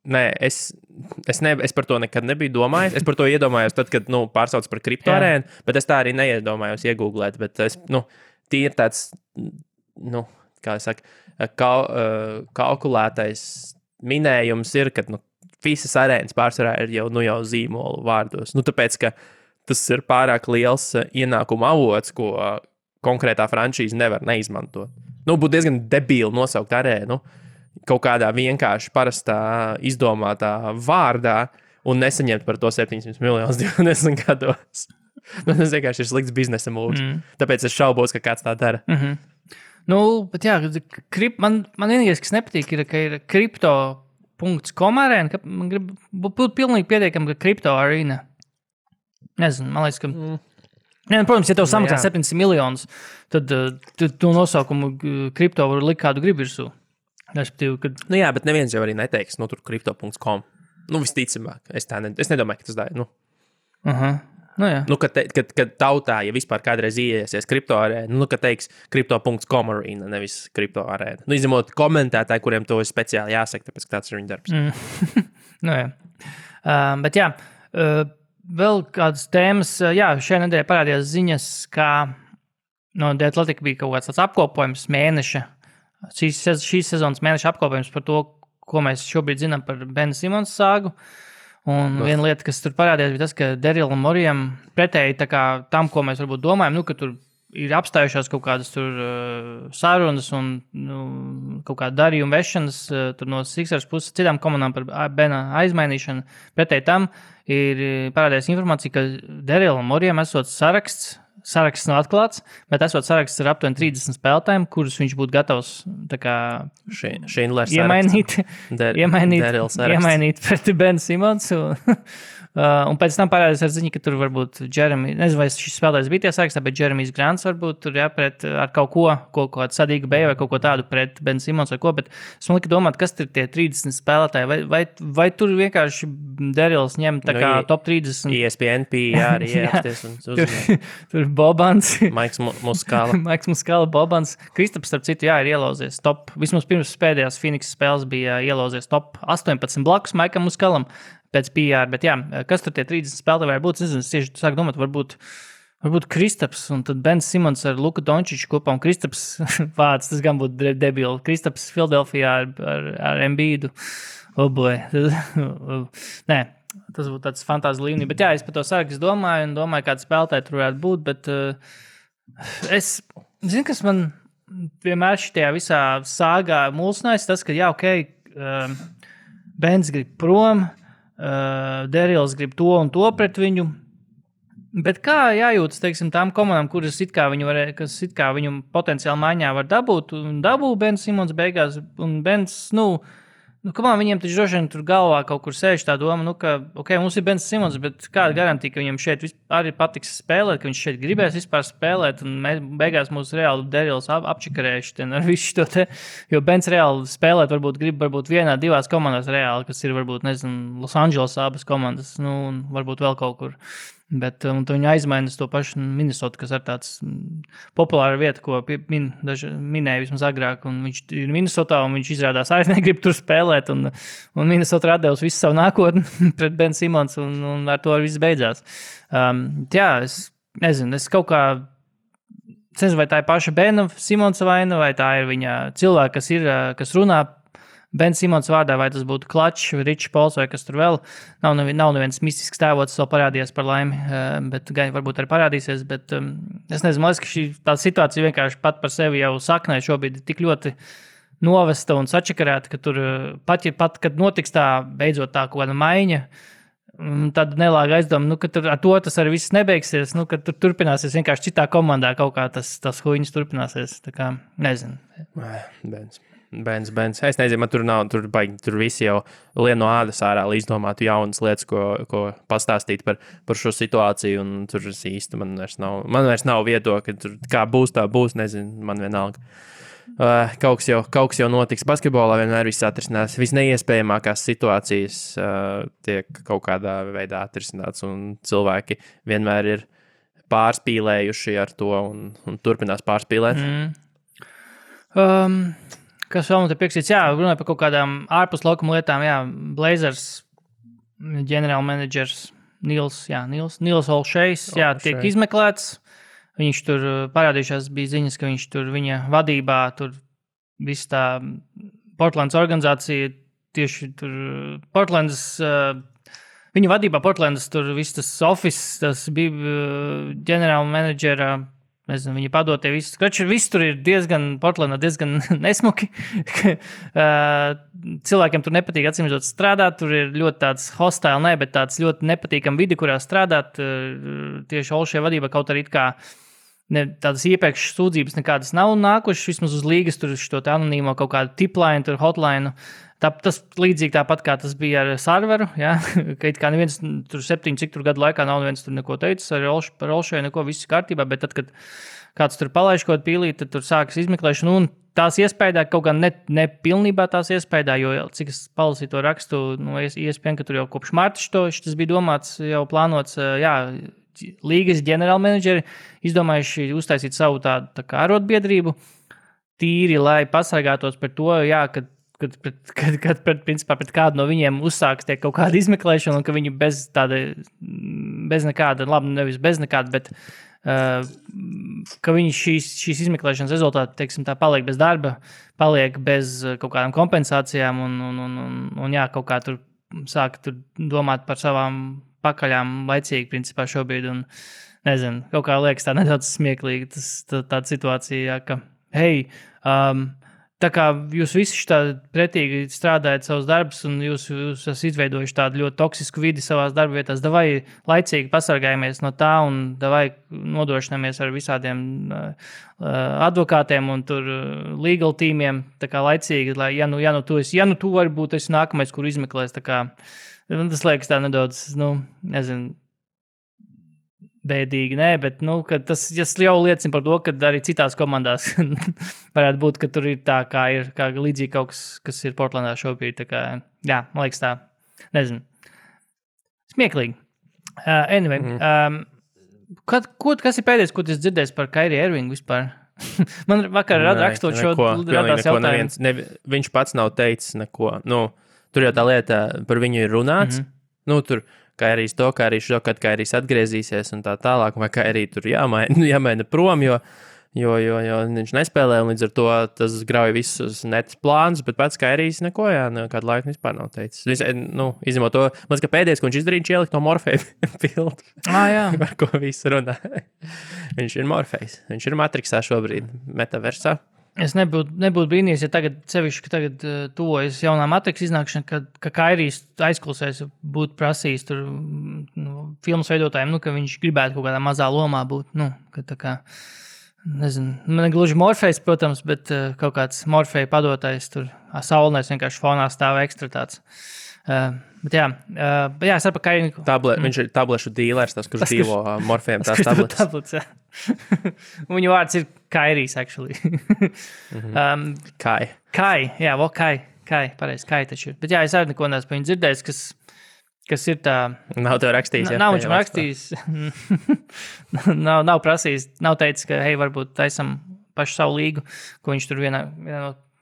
Nē, es par to nekad nebiju domājis. Es par to iedomājos tad, kad pārsauc par kripto arēnu, bet es tā arī neiedomājos iegooglēt, bet es, tie ir tāds, kā es saku, kalkulētais minējums ir, ka, visas arēnas pārsvarā ir jau zīmolu vārdos. Tāpēc, ka tas ir pārāk liels ienākuma avots, ko konkrētā franšīze nevar neizmantot. Būtu diezgan debīli nosaukt arēnu kaut kādā vienkārši parastā izdomātā vārdā un nesaņemt par to 700 miljonus 20 gados. Tas vienkārši ir slikts biznesa mūvs. Tāpēc es šaubos, ka kāds tā dara. Bet jā, man vienīgais, kas nepatīk, ir, ka ir kripto.com arēna, ka man grib būt pilnīgi pietiekami, ka kripto arēna. Nezinu, man liekas, ka... Protams, ja tev samaksā 700 miljonus, tad tu nosaukumu kripto var likt kādu grib virsū. Respektīvi, kad... Jā, bet neviens jau arī neteiks, tur kripto.com. Visticamāk, es nedomāju, ka tas dara, jā. Kad tautā, ja vispār kādreiz ieiesies kripto arēna, kad teiks kripto.com arēna, nevis kripto arēna. Izņemot komentētāji, kuriem to ir speciāli jāsaka, tāpēc tāds ir viņa darbs. Jā. Bet jā, vēl kādas tēmas, šajā nedēļā parādījās ziņas, kā The Athletic bija kaut kāds tāds apkopojums mēneša, šīs sezonas mēneša apkopojums par to, ko mēs šobrīd zinām par Bena Simons sāgu. Un viena lieta, kas tur parādījās, bija tas, ka Darylam Moreyam pretēji tam, ko mēs varbūt domājam, ka tur ir apstājušās kaut kādas tur sarunas un kaut kāda darījuma vešanas tur no Sixers puses citām komandām par Bena aizmainīšanu. Pretēji tam ir parādījās informācija, ka Darylam Moreyam esot saraksts nav atklāts, bet esot saraksts ar aptuveni 30 spēlētājiem, kurus viņš būtu gatavs iemainīt pret Ben Simons. Un pēc tam parādījās ar ziņu, ka tur varbūt Jeremy, nezinu, vai šis spēlētājs bija tie sarakstā, bet Jeremijs Grants varbūt tur pret ar kaut ko sadīgu beju vai kaut ko tādu pret Ben Simons vai ko, bet es man lika domāt, kas tur tie 30 spēlētāji, vai tur vienkārši Daryls ņem tā kā top 30. ESPN, arī ieapsties un uzmanīt. Tur Bobans. Maiks Muskala. Bobans. Kristaps, starp citu, ir ielauzies top, vismaz pirms pēdējās Phoenix spēles bija ielauzies top 18 blakus Maikam Muskalam. Pēc PR, bet jā, kas tur tie 30 spēlētāji var būt? Es nezinu, es tieši sāku domāt, varbūt Varbūt Kristaps un tad Bens Simons ar Luku Dončiču kopā, un Kristaps vārds, tas gan būtu debili. Kristaps Filadelfijā ar Embiidu. Oh boy. Nē, tas būtu tāds fantāzi līmenī. Bet jā, es par to sarakstu domāju, kāda spēlētāja tur varētu būt, bet es zinu, kas man vienmēr šitajā visā sāgā mulsinājis, tas, ka jā, Bens grib prom, Derils grib to un to pret viņu. Bet kā jājūtas, teiksim, tām komandām, kas it kā viņu potenciāli maiņā var dabūt, un dabū Bens Simons beigās, un Bens, viņiem taču droši vien tur galvā kaut kur sēž tā doma, ka, mums ir Bens Simons, bet kāda garantija, ka viņam šeit arī patiks spēlēt, ka viņš šeit gribēs vispār spēlēt, un beigās mūs reāli Derils apčikarējuši ar visu šo te, jo Bens reāli spēlēt grib vienā, divās komandās reāli, kas ir varbūt, nezinu, Los Angeles abas komandas, un varbūt vēl kaut kur. Bet viņi aizmaina to pašu Minnesota, kas ir tāds populāra vieta, ko minēja vismaz agrāk. Un viņš ir Minnesotā, un viņš izrādās arī negrib tur spēlēt. Un Minnesota atdevusi visu savu nākotni pret Ben Simons, un ar to viss beidzās. Jā, es nezinu, es kaut kā nezinu, vai tā ir paša Bena Simonsa vaina, vai tā ir viņa cilvēka, kas runā Ben Simons vārdā, vai tas būtu Klačs, Ričs Pols vai kas tur vēl. Nav neviens mistisks tēvots, vēl parādījās par laimi, bet varbūt arī parādīsies. Bet es nezinu, man liekas, ka tā situācija vienkārši pat par sevi jau saknē šobrīd tik ļoti novesta un sačakarēta, ka tur pat kad notiks tā beidzot tā kaut kāda maiņa, tad nelāga aizdoma, ka tur ar to tas arī viss nebeigsies, ka tur turpināsies vienkārši citā komandā kaut kā tas huīņas turpināsies. Tā kā, nezinu. Bens. Es nezinu, man tur visi jau lien no ādas ārā, lai izdomātu jaunas lietas, ko pastāstīt par šo situāciju, un tur īsti man vairs nav viedokļa, tur kā būs, tā būs, nezinu, man vienalga. Kaut kas jau notiks basketbolā, vienmēr viss atrisinās. Visneiespējamākās situācijas tiek kaut kādā veidā atrisināts, un cilvēki vienmēr ir pārspīlējuši ar to un turpinās pārspīlēt. Kas vēl man te pieksīts? Jā, runāja par kaut kādām ārpus laukuma lietām. Jā, Blazers ģenerālmenedžers Nils Olšejs, tiek izmeklēts. Viņš tur parādījušās bija ziņas, ka viņš tur viņa vadībā, tur viss tā Portlandas organizācija, tieši tur Portlandas, viņa vadībā Portlandas tur viss tas office, tas bija ģenerālmenedžera, nezinu, viņa padotie viss. Viss tur ir Portlandā diezgan nesmuki. Cilvēkiem tur nepatīk atsimredzot strādāt. Tur ir ļoti tāds hostile, bet tāds ļoti nepatīkam vidi, kurā strādāt. Tieši Olšē vadībā kaut arī kā tādas iepriekšas sūdzības nekādas nav nākušas. Vismaz uz līgas tur šo anonīmo kaut kādu tipline, tur hotline. Tas līdzīgi tāpat, kā tas bija ar serveru, ka it kā neviens tur 7 cik tur gadu laikā nav neviens tur neko teicis, par Olšēju neko viss kārtībā, bet tad, kad kāds tur palaiž kaut pīlīt, tad tur sākas izmeklēšana, un tās iespējā kaut kā ne pilnībā tās iespējā, jo cik es palasīju to rakstu, iespējams, ka tur jau kopš marta tas bija domāts, jau plānots, līgas ģenerālmenedžeri izdomājuši uztaisīt savu tādu kā arotbiedrību, tīri, lai pasargātos par to, kad pret kādu no viņiem uzsāks tiek kaut kāda izmeklēšana, un ka viņi bez nekāda, labi, nevis bez nekāda, bet ka viņi šīs izmeklēšanas rezultāti, teiksim, tā paliek bez darba, paliek bez kaut kādām kompensācijām, un kaut kā tur sāk tur domāt par savām pakaļām laicīgi, principā šobrīd, un nezinu, kaut kā liekas tā nedaudz smieklīgi, tāda situācija, ka, tā kā jūs visi tādi pretīgi strādājat savus darbus, un jūs esat izveidojuši tādu ļoti toksisku vidi savās darba vietās, davai laicīgi pasargājamies no tā, un davai nodrošināmies ar visādiem advokātiem un tur legal tīmiem, tā kā laicīgi, lai, ja tu vari būt esi nākamais, kur izmeklēs, tā kā, tas liekas tā nedaudz, nezinu, bēdīgi, bet tas jau liecina par to, ka arī citās komandās varētu būt, ka tur ir tā, kā līdzīgi kaut kas ir Portlandā šobrīd. Tā kā, man liekas tā, nezinu, smieklīgi. Anyway, kas ir pēdējais, ko tu dzirdēsi par Kyrie Irvingu vispār? Man vakar rakstot šo radās jautājums. Viņš pats nav teicis neko. Tur jau tā lieta par viņu ir runāts. Tur Kairijs to, Kairijs šo, kad Kairijs atgriezīsies un tā tālāk, vai Kairij tur jāmaina prom, jo viņš nespēlē, un līdz ar to tas grauj visus netas plānus, bet pats Kairijs neko, kādu laiku vispār nav teicis. Izņemot to, man ka pēdējais, ko viņš izdarīja, ielikt no Morfeja pildu. Jā. Par ko visu runā. Viņš ir Morfejs, viņš ir Matrixā šobrīd, metaversā. Es nebūtu brīnījies, ja tagad tuvojas jaunā Matrix iznākšana, ka Kairijs aizklausēs būtu prasījis tur filmas veidotājiem, ka viņš gribētu kaut kādā mazā lomā būt, ka tā kā nezinu, man gluži Morfejs, protams, bet kaut kāds Morfeja padotais tur saulnēs vienkārši fonā stāv ekstra tāds. Bet es saprotu, ka viņš ir tablešu dīlers, tas, kurš dīlo Morfejam tās tabletes. Viņu vārds ir Kairijs, actually. Kai. Kai, pareizi, Kai taču ir. Bet es arī neko neesmu par viņu dzirdējis, kas ir tā... Nav tev rakstījis, Nav viņš rakstījis. nav prasījis, nav teicis, ka, varbūt taisam pašu savu līgu, ko viņš tur vienā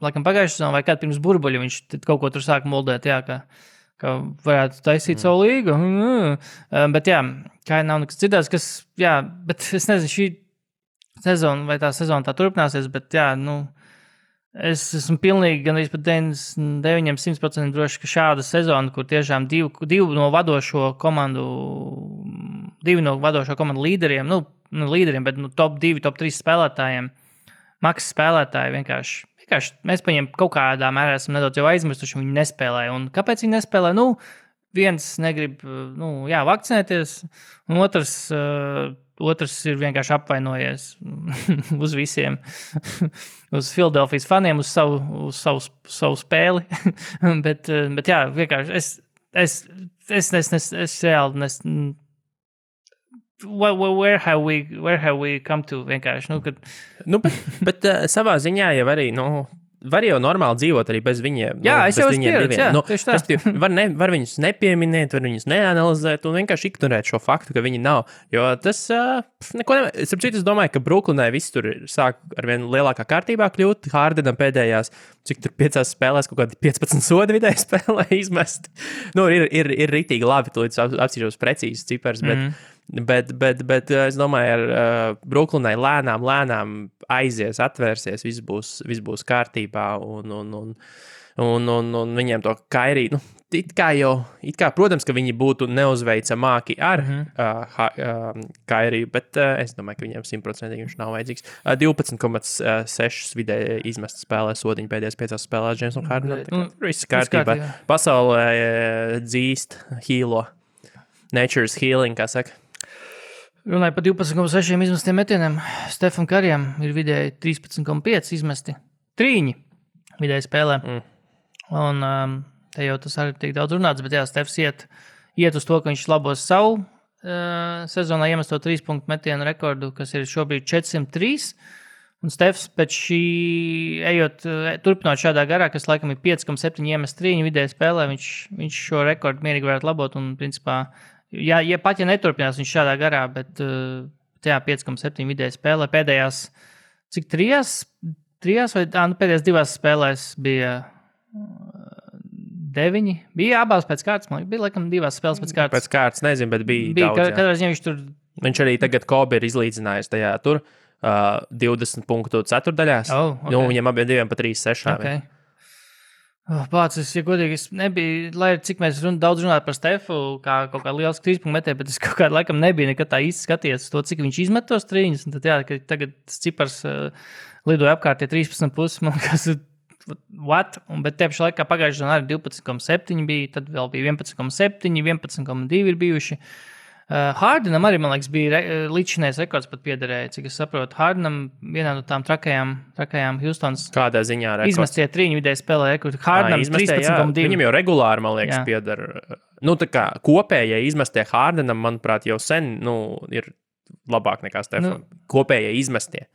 laikam pagājušajā sezonā vai kādā pirms burbuļa viņš kaut ko tur sāk moldēt, ka varētu taisīt savu līgu. Bet kā nav nekas dzirdēts, bet es nezinu, šī sezona vai tā sezona tā turpināsies, bet es esmu pilnīgi gan arī pat 99% droši, ka šāda sezona, kur tiešām divi no vadošo komandu līderiem, līderiem, bet top 2, top 3 spēlētājiem, maksas spēlētāji vienkārši mēs paņem kaut kādā mērā esam nedaudz jau aizmirstuši, viņi nespēlē. Un kāpēc viņi nespēlē? Viens negrib, vakcinēties, un otrs ir vienkārši apvainojies uz visiem, uz Philadelphijas faniem, uz savu spēli. bet vienkārši es reāli where have we come to vienkārši, kad... bet savā ziņā jau arī, var jau normāli dzīvot arī bez viņiem. Es jau esmu pieredzi, var viņus nepieminēt, var viņus neanalizēt un vienkārši ignorēt šo faktu, ka viņi nav. Jo tas neko nevajag. Es domāju, ka Brooklynai viss tur sāk ar vien lielākā kārtībā kļūt. Hardenam pēdējās, cik tur 5 spēlēs, kaut kādi 15 sodi vidēji spēlē izmest. Ir ritīgi labi, tu līdz apsīšos precīzi cipars, bet es domāju, ar Brooklynai lēnām aizies, atvērsies, viss būs kārtībā un viņiem to Kairiju, it kā, protams, ka viņi būtu neuzveicamāki ar Kairiju, bet es domāju, ka viņiem 100% viņš nav vajadzīgs. 12,6 vidēji izmest spēlē sodiņu pēdējās 5 spēlēs James un Harden. Viss kārtībā. Pasaulē dzīst, healo. Nature's healing, kā saka. Runāju par 12,6 izmestiem metieniem. Stefan Karijam ir vidēji 13,5 izmesti. 3 vidēji spēlē. Un te jau tas arī tiek daudz runāts, bet Stefs iet uz to, ka viņš labos savu sezonā iemesto 3 punktu metienu rekordu, kas ir šobrīd 403. Un Stefs pēc šī turpinot šādā garā, kas laikam ir 5,7 iemest 3 vidēji spēlē, viņš šo rekordu mierīgi varētu labot un principā ja neturpinās viņš šādā garā, bet 5,7 vidēji spēlē pēdējās, cik 3 vai pēdējās 2 spēlēs bija 9, bija abās pēc kārtas, man bija laikam 2 spēles pēc kārtas. Pēc kārtas, nezinu, bet bija daudz. Katrā ziņā viņš arī tagad Kobe ir izlīdzinājis tajā tur 20 punktu ceturdaļās. Viņam abiem pa 3,6. Okay. Pācis, ja godīgi, es nebiju, lai cik mēs daudz runātu par Stefu, kā kaut kā liels 3 punktu metē, bet es kaut kādā laikam nebiju nekad tā īsti skaties to, cik viņš izmet tos trīņus, un tad ka tagad tas cipars lidoja apkārt, 13,5, man kas what? Bet te pašā laikā pagājušajā sezonā arī 12,7 bija, tad vēl bija 11,7, 11,2 ir bijuši. Hardenam arī, man liekas, bija līdzinājais rekords pat piederēja, cik es saprotu. Hardenam vienā no tām trakajām Houstons. Kādā ziņā rekords? Izmestie 3 vidēji spēlē rekordu. Hardenam 13,2. Viņam jau regulāri, man liekas, piedara. Tā kā kopējai izmestie Hardenam, manuprāt, jau sen, ir labāk nekā Stefan. Kopējai izmestie.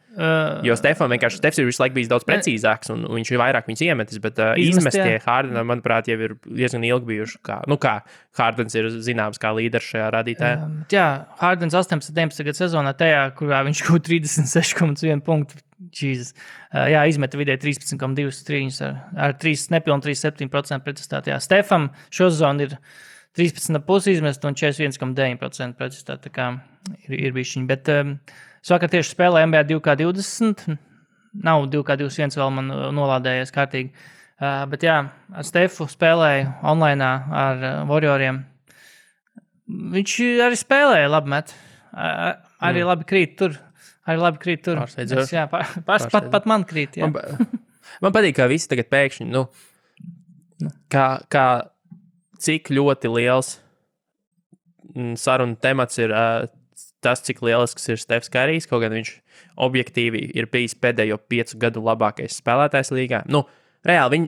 Jo Stefs ir visu laiku bijis daudz precīzāks, un viņš ir vairāk viņus iemetis, bet izmestie Hardenam, manuprāt, jau ir diezgan ilgi bijuši. Kā Hardens ir zināms kā līderis šajā rādītājā. Hardens 18-19 sezonā tajā, kurā viņš kaut 36,1 punktu. Jesus. Izmeta vidēji 13,2 trīņus ar 3,7% pretestāti. Stefam šo sezonu ir 13,5 izmest un 41,9% precizitāte. Tā kā ir bišķiņi. Bet es vakar tieši spēlēju NBA 2K20. Nav 2K21 vēl man nolādējies kārtīgi. Bet jā, ar Stefu spēlēju online ar Warrioriem. Viņš arī spēlēja labi met. Arī labi krīt tur. Pārsteidzoši. Jā, pat man krīt. Jā. Man patīk, kā visi tagad pēkšņi, kā cik ļoti liels saruna temats ir tas, cik lielisks ir Stefs Karijs, kaut gan viņš objektīvi ir bijis pēdējo 5 gadu labākais spēlētājs līgā. Reāli,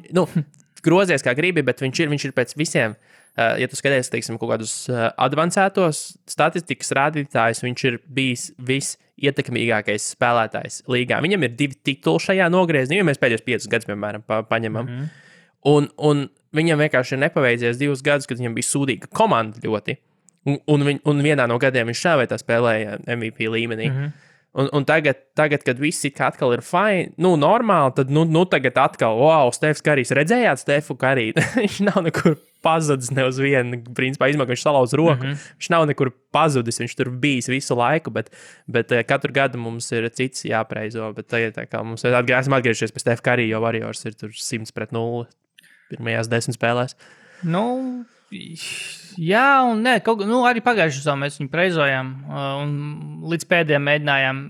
grozies kā gribi, bet viņš ir pēc visiem, ja tu skaties, teiksim, kaut kādus advancētos statistikas rādītājus, viņš ir bijis visietekmīgākais spēlētājs līgā. Viņam ir 2 tituli šajā nogriezienā, ja mēs pēdējos 5 gadus, piemēram, paņemam. Un viņam vienkārši ir nepaveicies 2 gadus, kad viņam bija sūdīga komanda ļoti. Un vienā no gadiem viņš šāvētā spēlēja MVP līmenī. Un tagad, kad viss atkal ir fine, normāli, tad tagad atkal, wow, Stefs Karijs, redzējāt Stefu Kariju? Viņš nav nekur pazudis ne uz vienu, principā viņš salauz roku. Viņš nav nekur pazudis, viņš tur bijis visu laiku, bet katru gadu mums ir cits jāpreizo, bet tagad tā kā mums esam atgriežies pie Stefa Karija, jo Warriors ir tur 100-0 pirmajās 10 spēlēs. Jā, un nē, arī pagājušajā sezonā mēs viņu preizojām un līdz pēdējiem mēģinājām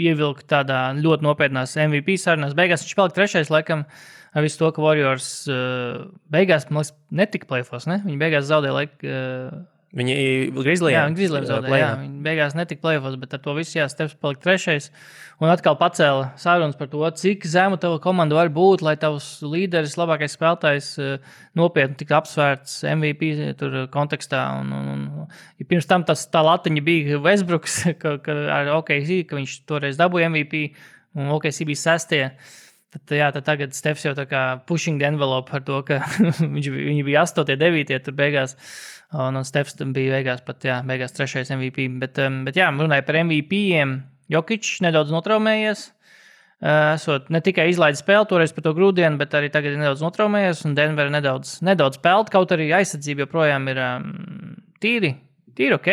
ievilkt tādā ļoti nopietnās MVP sarunās. Beigās viņš palika 3. laikam ar visu to, ka Warriors beigās, man liekas, netika play-offs, ne? Viņi beigās zaudēja laiku. Viņi Grizzliem. Jā, viņi Grizzliem zaudēja. Jā, viņi beigās netika play-offs, bet ar to visu Stefs palika 3. Un atkal pacēla sarunas par to, cik zemu tava komanda var būt, lai tavs līderis, labākais spēlētājs nopietni tiktu apsvērts MVP tur kontekstā. Ja pirms tam tā latiņa bija Westbrooks, ar OKC, ka viņš toreiz dabūja MVP, un OKC bija 6. Tad tagad Stefs jau tā kā pushing the envelope par to, ka viņi bija 8, 9 tur beigās. Un Stefs bija beigās 3. MVP. Bet jā, runāja par MVP-iem. Jokičs nedaudz notraumējies. Esot ne tikai izlaidis spēli toreiz par to grūdienu, bet arī tagad ir nedaudz notraumējies. Un Denver nedaudz peld, kaut arī aizsardzība joprojām ir tīri ok.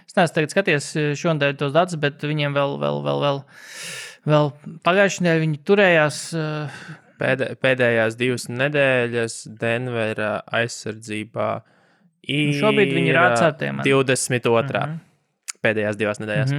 Es neesmu tagad skaties šodien tos datus, bet viņiem vēl pagājušajā nedēļā viņi turējās. Pēdējās 2 nedēļas Denvera aizsardzībā šobrīd viņi ir atcertiem. 22. Pēdējās 2 nedēļas.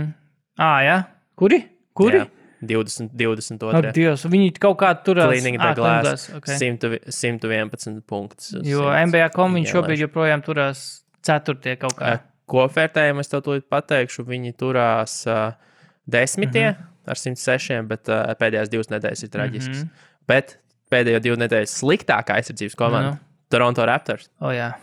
Jā? Kuri? Jā, 22. Ak, Dievs, viņi kaut kā turās. Cleaning the glass, okay. 111 punktus. Jo NBA.com viņš šobrīd joprojām turās 4. kaut kā. Kopvērtējumu es tev tūlīt pateikšu, viņi turās 10. Ar 106, bet pēdējās 2 nedēļas ir traģisks. Bet pēdējo 2 nedēļas sliktākā aizsardzības komanda Toronto Raptors. Jā.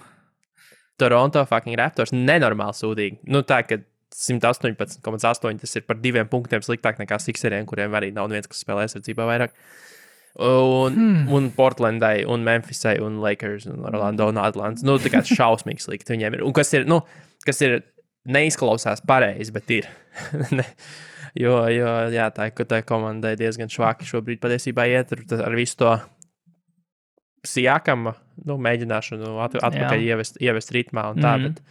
Toronto fucking Raptors nenormāli sūdīgi. Tā, ka 118,8 tas ir par 2 punktiem sliktāk nekā Sixeriem, kuriem arī nav viens, kas spēlē aizsardzībā vairāk. Un Portlandai, un Memphisai, un Lakers, un Orlando, un Atlants. Tā kā šausmīgi slikti viņiem ir. Un kas ir neizklausās pareizi, bet ir. jo, jā, tā komandai diezgan švaki šobrīd patiesībā iet ar visu to Siakama mēģināšanu atpakaļ ievest ritmā un tā, bet,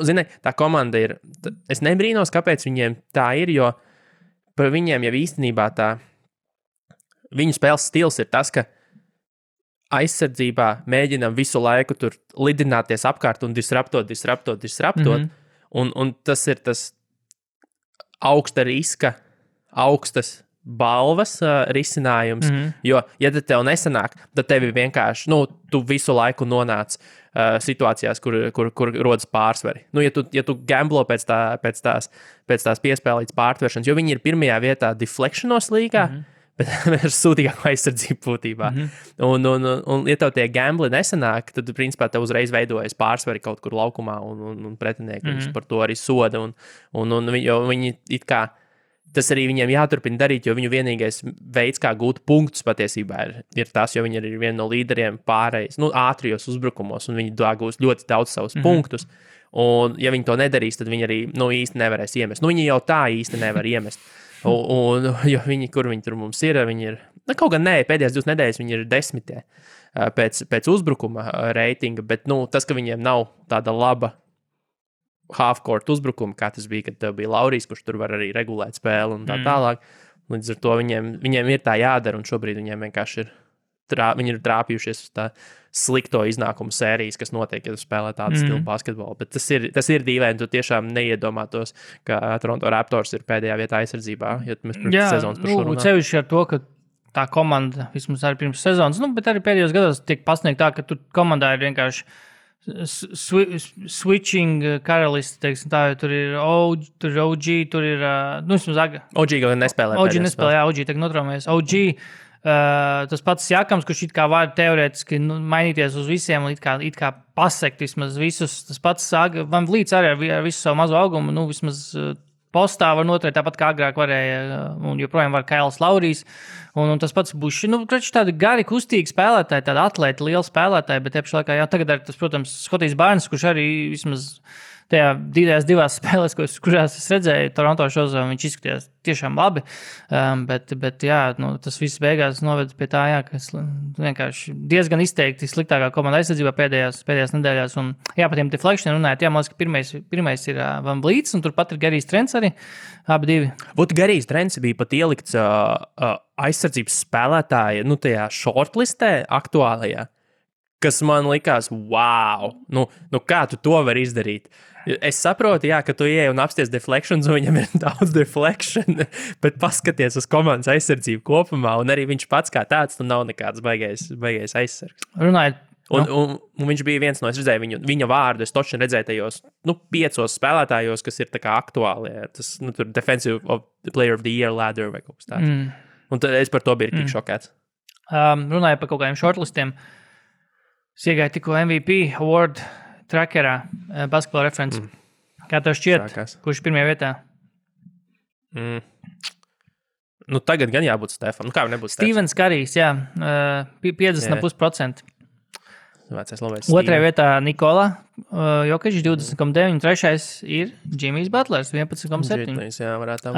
zini, tā komanda ir, es nebrīnos, kāpēc viņiem tā ir, jo par viņiem jau īstenībā viņu spēles stils ir tas, ka aizsardzībā mēģinam visu laiku tur lidināties apkārt un disruptot, un tas ir tas augsta riska, augstas balvas risinājums, jo, ja tev nesanāk, tad tevi vienkārši, tu visu laiku nonāc situācijās, kur rodas pārsvari. Ja tu gamblo pēc tās piespēlītas pārtveršanas, jo viņi ir 1. vietā deflectionos līgā, bet ar sūdīgāku aizsardzību būtībā. Un ja tev tie gambli nesanāk, tad, principā, tev uzreiz veidojas pārsvari kaut kur laukumā, un pretinieki viņus par to arī soda, jo viņi it kā tas arī viņiem jāturpina darīt, jo viņu vienīgais veids, kā gūt punktus patiesībā ir tas, jo viņi ir viena no līderiem pārējais, ātrijos uzbrukumos, un viņi gūs ļoti daudz savus punktus. Un, ja viņi to nedarīs, tad viņi arī īsti nevarēs iemest. Viņi jau tā īsti nevar iemest. Jo viņi, kur viņi tur mums ir, viņi ir, kaut gan nē, pēdējās 2 nedēļas viņi ir 10. pēc uzbrukuma reitinga, bet tas, ka viņiem nav tāda laba half-court uzbrukuma, kā tas bija, kad bija Laurijs, kurš tur var arī regulēt spēli un tā tālāk. Līdz ar to viņiem ir tā jādara, un šobrīd viņiem vienkārši viņi ir trāpījušies uz tā slikto iznākumu sērijas, kas notiek, ja tu spēlē tādu stilu basketbolu. Bet tas ir dīvaini, tu tiešām neiedomātos, ka Toronto Raptors ir pēdējā vietā aizsardzībā, ja mēs pirms sezonas par šo runājam. Cevišķi ar to, ka tā komanda, vismaz arī pirms sezonas, bet arī pēdējos gados tiek pasniegt tā, ka tur komandā ir vienkārši switching karalisti, teiksim tā, jo tur ir OG, tur ir, vismaz OG gan nespēlē. OG nespēlē, OG tagad notraumējas. OG, tas pats Jakams, kurš it kā var teorētiski mainīties uz visiem, it kā pasekt vismaz visus, tas pats Van Vliets arī ar visu savu mazo augumu, vismaz postā var noturēt tāpat kā agrāk varēja, un joprojām var Kails Laurijs, un tas pats Buši. Tādi gari, kustīgi spēlētāji, tādi atlēti, lieli spēlētāji, bet tieši laikā, tagad ir tas, protams, Skotijs Barnes, kurš arī vismaz tajā divās spēlēs, kurās es redzēju, Toronto šozā, viņš izskatījās tiešām labi, bet tas viss beigās noved pie tā, ka vienkārši diezgan izteikti sliktākā komanda aizsardzībā pēdējās nedēļās, un par tiem deflection runājot, man liekas, ka pirmais ir Van Vliets, un turpat ir Garijs Trents arī, abi divi. Garijs Trents bija pat ielikts aizsardzības spēlētāja, tajā shortlistē aktuālajā, kas man likās, wow, kā tu to vari izdarīt? Es saprotu, ka tu ieej un apsties deflections, un viņam ir daudz deflection, bet paskaties uz komandas aizsardzību kopumā, un arī viņš pats kā tāds, nav nekāds baigais aizsargs. Runājot. Un viņš bija viens no, es redzēju viņa vārdu, es točni redzēju tajos, 5 spēlētājos, kas ir tā kā aktuāli, tas, tur Defensive Player of the Year ladder vai kaut kas tāds. Un tad es par to biju tik šokēts. Runājot par kaut kādiem shortlistiem, es iegāju tikko MVP award trackerā, Basketball Reference. Kā tev šķiet, kurš pirmajā vietā? Tagad gan jābūt Stefam. Kā nebūtu Stevens Karijs, 50,5%. Otrajā vietā Nikola Jokic, 20,9. Trešais ir Jimmys Butlers, 11,7. Jā, varētu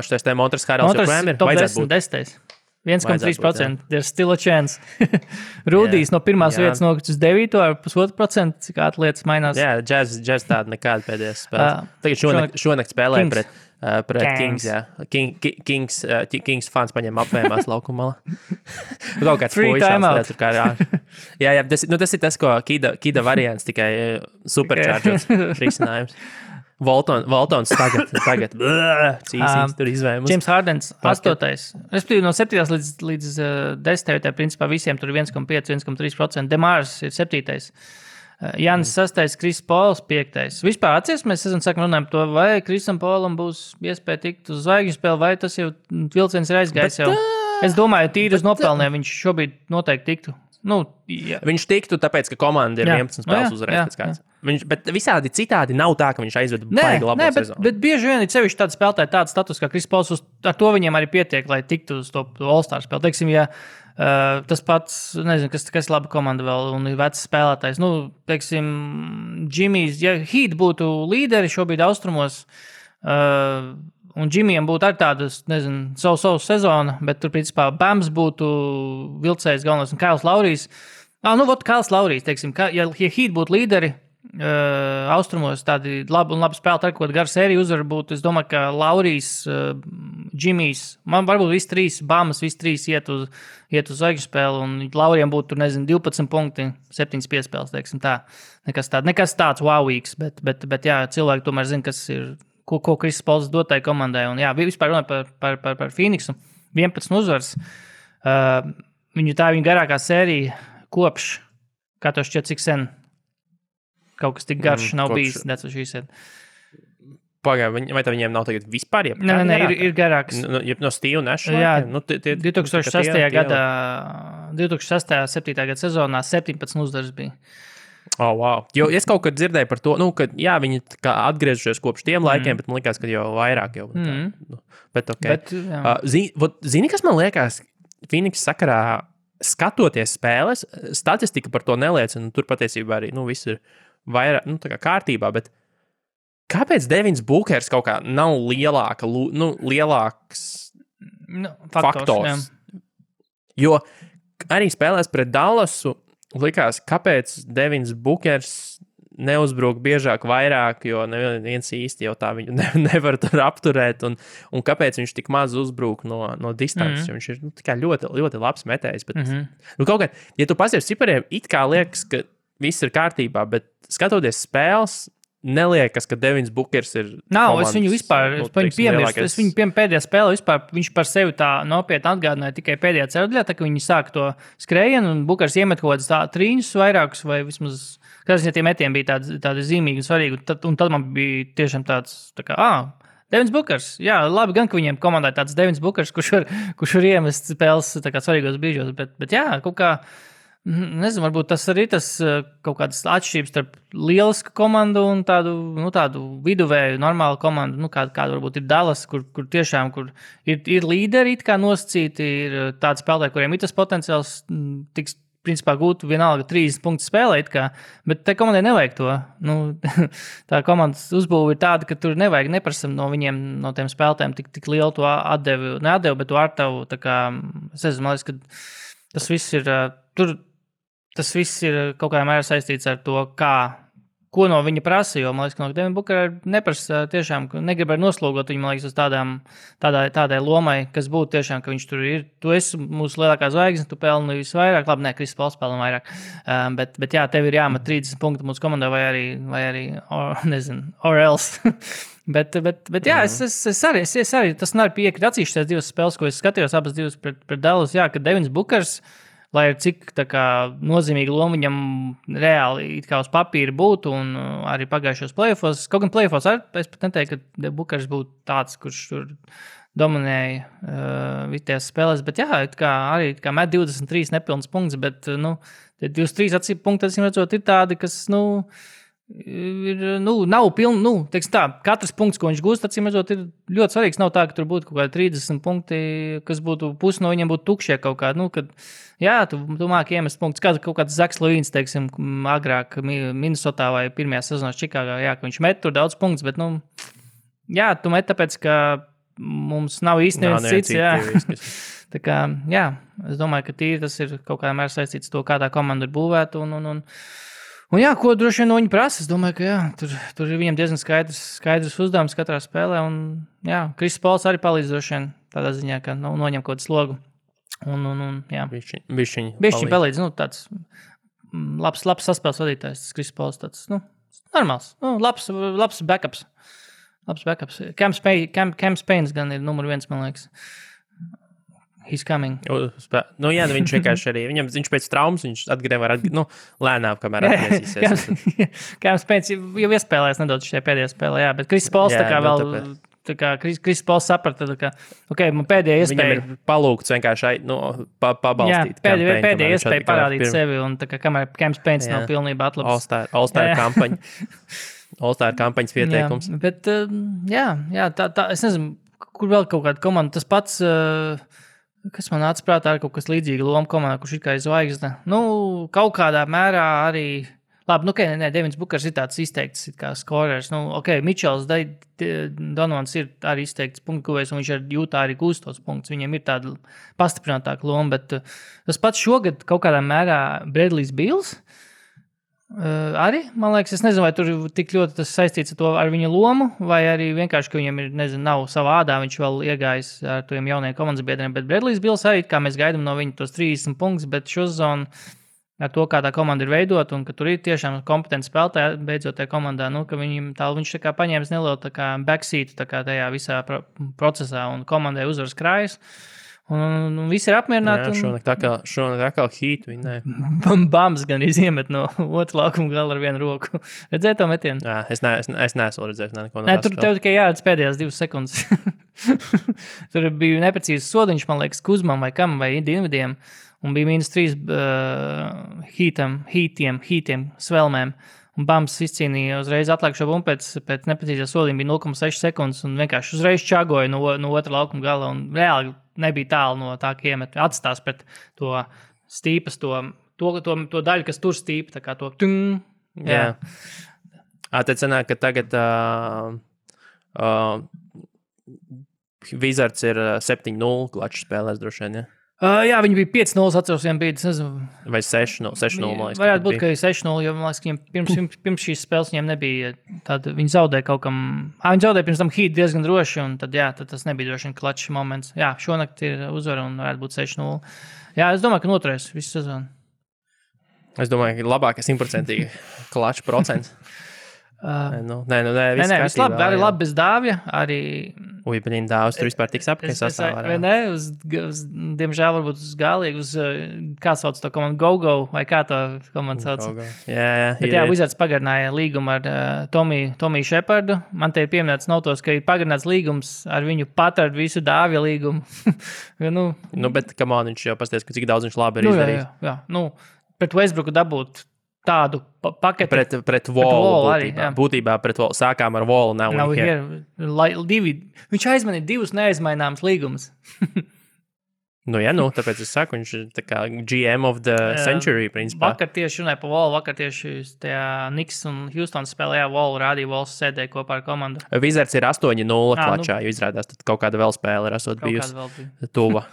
šitais te Montres Harrells joprojām ir. Top 10, 10. 1,3%. There's still a chance. Rūdijs no pirmās vietas nokļuvis uz 9 ar 1,5%, cik lietas mainās. Jā, Jazz tāda nekāda pēdējās spēles. Tagad šonakt spēlēja pret Kings. Kings fans paņem apvējumās laukumā. Kaut kāds puišās. Jā, tas ir tas, ko Kida variants, tikai superchargers risinājums. Voltons tagad cīsīs tur izvējumus. James Hardens 8. Respektīvi no 7. līdz 10. vietā principā visiem tur 1,5-1,3%. Demārs ir 7. Jānis 6. Kris Pols 5. Vispār atcies, mēs sākam runāt par to, vai Krisam Polam būs iespēja tikt uz zvaigžņu spēli, vai tas jau vilciens ir aizgājis jau. Es domāju, tīri uz nopelnē viņš šobrīd noteikti tiktu. Viņš tiktu, tāpēc, ka komanda ir 11 spēles uzvarējusi. Bet visādi citādi nav tā, ka viņš aizved baigi labo sezonu. Bet bieži vien ir sevišķi tādi spēlētāji, tāds status kā Kris Pols, ar to viņiem arī pietiek, lai tiktu uz to All-Star spēli. Teiksim, tas pats, nezinu, kas laba komanda vēl un ir vecs spēlētājs. Teiksim, Jimmys, ja Heat būtu līderi šobrīd austrumos, un Jimmyam būtu arī tādas, nezinu, savu sezonu, bet tur, principā, Bams būtu vilcējs galvenais un Kails Laurijs. Kails Laurijs, teiksim, ja Heat būtu līderi, austrumos tādi labi spēlētāji, ar ko garu sēriju uzvaru būtu. Es domāju, ka Laurijs, Jimmys, man varbūt visi 3, Bamas, visi 3 iet uz zvaigžņu spēli, un Laurijam būtu, 12 punkti, 7 piespēles, teiksim tā. Nekas tāds wowīgs, bet jā, cilvēki tomēr zina, kas ir, ko Kris Pols dotai komandai. Un jā, vispār runāja par Phoenixu, 11 uzvars. Viņa garākā sērija kopš, kā to šķiet, cik sen. Kaut kas tik garš nav bijis. Pagaidām, vai tā viņiem nav tagad vispār? Nē, ir garāks. No Steve Nash? Jā, 2006. gadā, 2006.7. gada sezonā 17 uzvaras bija. Oh, wow. Jo es kaut kad dzirdēju par to, ka viņi atgriežušies kopš tiem laikiem, bet man liekas, ka jau vairāk jau. Bet okay. Zini, kas man liekas Phoenix sakarā skatoties spēles, statistika par to neliecina, tur patiesībā arī, viss ir vairāk, tā kā kārtībā, bet kāpēc Devins Bookers kaut kā nav lielāks faktors? Jo arī spēlēs pret Dallasu. Likās, kāpēc Devins Bukers neuzbruk biežāk vairāk, jo neviens īsti jau tā viņu nevar tur apturēt, un kāpēc viņš tik maz uzbruk no distances, jo viņš ir tikai ļoti, ļoti labs metējs, bet kaut kā, ja tu pasies cipariem, it kā liekas, ka viss ir kārtībā, bet skatoties spēles, neliekas, ka Devins Bukers ir nav, es viņu vispār, es viņu pēdējā spēlē vispār, viņš par sevi tā nopietni atgādināja tikai pēdējā ceļā, tā ka viņi sāk to skrējienu, un Bukers iemet kaut kādas trīņus vairākus, vai vismaz, kāds ja tie metieni bija tādi zīmīgi un svarīgi, un tad man bija tiešām tāds, tā kā, Devins Bukers, jā, labi gan, ka viņiem komandai tāds Devins Bukers, kurš var iemest spēles tā kā svarīgos brīžos, bet jā, kaut kā, nezinu, varbūt tas arī kaut kādas atšķirības starp lielisku komandu un tādu viduvēju, normālu komandu, kāda varbūt ir Dallas, kur tiešām ir līderi, it kā nosacīti, ir tādi spēlētāji, kuriem ir tas potenciāls tiks, principā, gūt vienalga 30 punktu spēlē, bet tai komandai nevajag to. Tā komandas uzbūve ir tāda, ka tur nevajag neprasam no viņiem, no tiem spēlētājiem tik lielu to atdevi, bet to ar tavu, tā kā, es nezinu, man liekas, ka tas viss ir Tas viss ir kaut kādā mērā saistīts ar to, ko no viņa prasa, jo, man liekas, ka no Devina Bukera neprasa tiešām, negrib arī noslogot viņu, man liekas, uz tādai lomai, kas būtu tiešām, ka viņš tur ir. Tu esi mūsu lielākā zvaigzne, tu pelni visvairāk, labi, Kris Pols pelna vairāk, bet jā, tev ir jāmet 30 punktu mūsu komandā vai arī or else. Bet jā, es arī, tas nav piekrīt atsevišķās divas spēles, ko es skatījos, abas divas pret Dallas, jā, ka Devins Bukers, lai ir cik nozīmīga loma viņam reāli it kā uz papīra būtu un arī pagājušos play-offos. Kaut gan play-offos es pat neteiktu, ka Bukers būtu tāds, kurš tur dominēja vitējās spēlēs, bet jā, arī met 23 nepilnas punkts, bet 23 punkti, acīm redzot, ir tādi, kas, nav pilni, teiksim tā, katrs punkts, ko viņš gūst, acīm redzot, ir ļoti svarīgs. Nav tā, ka tur būtu kaut kādi 30 punkti, kas būtu pusi no viņiem būtu tukšie kaut kādi, kad, jā, tu māki iemest punktus, kaut kāds Zaks Levīns, teiksim, agrāk Minnesotā vai pirmajā sezonā Čikāgā, jā, ka viņš met tur daudz punktus, bet, jā, tu met tāpēc, ka mums nav īsti neviens cits, jā. Tā kā, jā, es domāju, ka tīri tas ir kaut kādā mērā saistīts to, kā tā komanda ir būvēta un jā, ko droši vien no viņa prasa, es domāju, ka jā, tur ir viņam diezgan skaidrs uzdevums katrā spēlē, un jā, Kris Pols arī palīdz droši vien tādā ziņā, ka noņem kaut kādu slogu, un jā. Bišķiņ palīdz, tāds labs saspēles vadītājs, tas Kris Pols, tāds, normāls, labs backups. Cam Spains gan ir numur 1, man liekas. He's coming. Jā, viņš vienkārši arī, viņš pēc traumas, viņš lēnām, kamēr atgriezīsies. Cam Spains jau iespēlēs nedaudz šajā pēdējā spēlē, jā, bet Kris Pols Kris Pols saprata, ka, man pēdējā iespēja. Viņam ir palūgts vienkārši pabalstīt. Jā, pēdējā iespēja parādīt sevi, un kamēr Cam Spains nav pilnībā atlabs. All-Star kampaņa. All-Star kampaņas pieteikums. Jā, bet, jā, tā, es nezinu, kur vēl kaut kāda komanda, tas pats, kas man nāca prātā, ir kaut kas līdzīga loma komandā, kurš ir kā zvaigzne. Kaut kādā mērā arī, labi, Devins Bukers ir tāds izteikts kā skorers. Mičels Donovans ir arī izteikts punktu guvējs, un viņš ar Jūtā arī gūst tos punktus. Viņam ir tāda pastiprinātāka loma, bet tas pats šogad kaut kādā mērā Bradley's Bills. Arī, man liekas, es nezinu, vai tur tik ļoti tas saistīts ar viņa lomu, vai arī vienkārši, ka viņam ir, nav savā ādā, viņš vēl iegājis ar tiem jaunajiem komandas biedriem, bet Bradley's Bills arī, kā mēs gaidām no viņa tos 30 punktus, bet šo sezonu ar to, kā tā komanda ir veidota un ka tur ir tiešām kompetenti spēlētāji beidzot tajā komandā, ka viņš tā kā paņēmis nelielu tā kā backseat tā kā tajā visā procesā un komandai uzvaras krājas. Un visi ir apmierināti. Jā, šonakt atkal hītu viņi, nē. Bams gan iziemet no otru laukuma gala ar vienu roku. Redzēji to metienu? Jā, es neesmu redzējis neko no tās. Tur tev tikai jāredz pēdējās 2 sekundes. Tur bija neprecīzs sodiņš, man liekas, Kuzmam vai kam, vai Dienvidiem. Un bija -3 hītiem, svelmēm. Un Bams izcīnīja uzreiz atlēkšo bumbu pēc neprecīzā sodiņa bija 0,6 sekundes un vienkārši uzreiz čagoja no otra laukuma gala un reāli nebija tālu no tā, ka iemet atstās pret to stīpas, to daļu, kas tur stīpa, tā kā to tung. Jā. Tad sanāk, ka tagad Wizards ir 7-0 klačs spēlēs droši vien, ja? Jā, viņi bija 5-0, atceros, viņiem bija, nezinu. Vai 6-0, man liekas. Varētu būt, ka 6-0, jo, man liekas, viņiem pirms šīs spēles viņiem nebija tāda, viņi zaudēja kaut kam, viņi zaudēja pirms tam Heat diezgan droši, un tad, tad tas nebija droši vien klačs moments. Jā, šonakt ir uzvara un varētu būt 6-0. Jā, es domāju, ka noturēs visu sezonu. Es domāju, ka labākais 100% klačs procents. Viss labi, arī labi bez Dāvja, arī... Uj, bet Dāvs tur vispār tiks apkārt sastāvā. Vai ne, diemžēl varbūt uz galīgi, kā sauc to komandu, Go-Go, vai kā to komandu sauc? Jā. Bet Wizards pagarināja līgumu ar Tomiju Shepardu. Man te ir pieminēts notos, ka ir pagarināts līgums ar viņu pat ar visu Dāvja līgumu. Bet, come on, viņš jau pasties, cik daudz viņš labi ir izdarījis. Jā. Pret Westbrooku dabūt tādu paketi. Pret Wallu būtībā pret Wallu. Sākām ar Wallu. Viņš aizmanīja 2 neaizmaināmas līgumus. Tāpēc es saku, viņš ir tā kā GM of the century, principā. Vakar tieši runāja par Wallu, vakar tieši tajā Knicks un Houston spēlējā Wallu, rādīja Walls sēdēja kopā ar komandu. Wizards ir 8-0 klačā, jo izrādās, tad kaut kāda vēl spēle ir esot bijusi tuva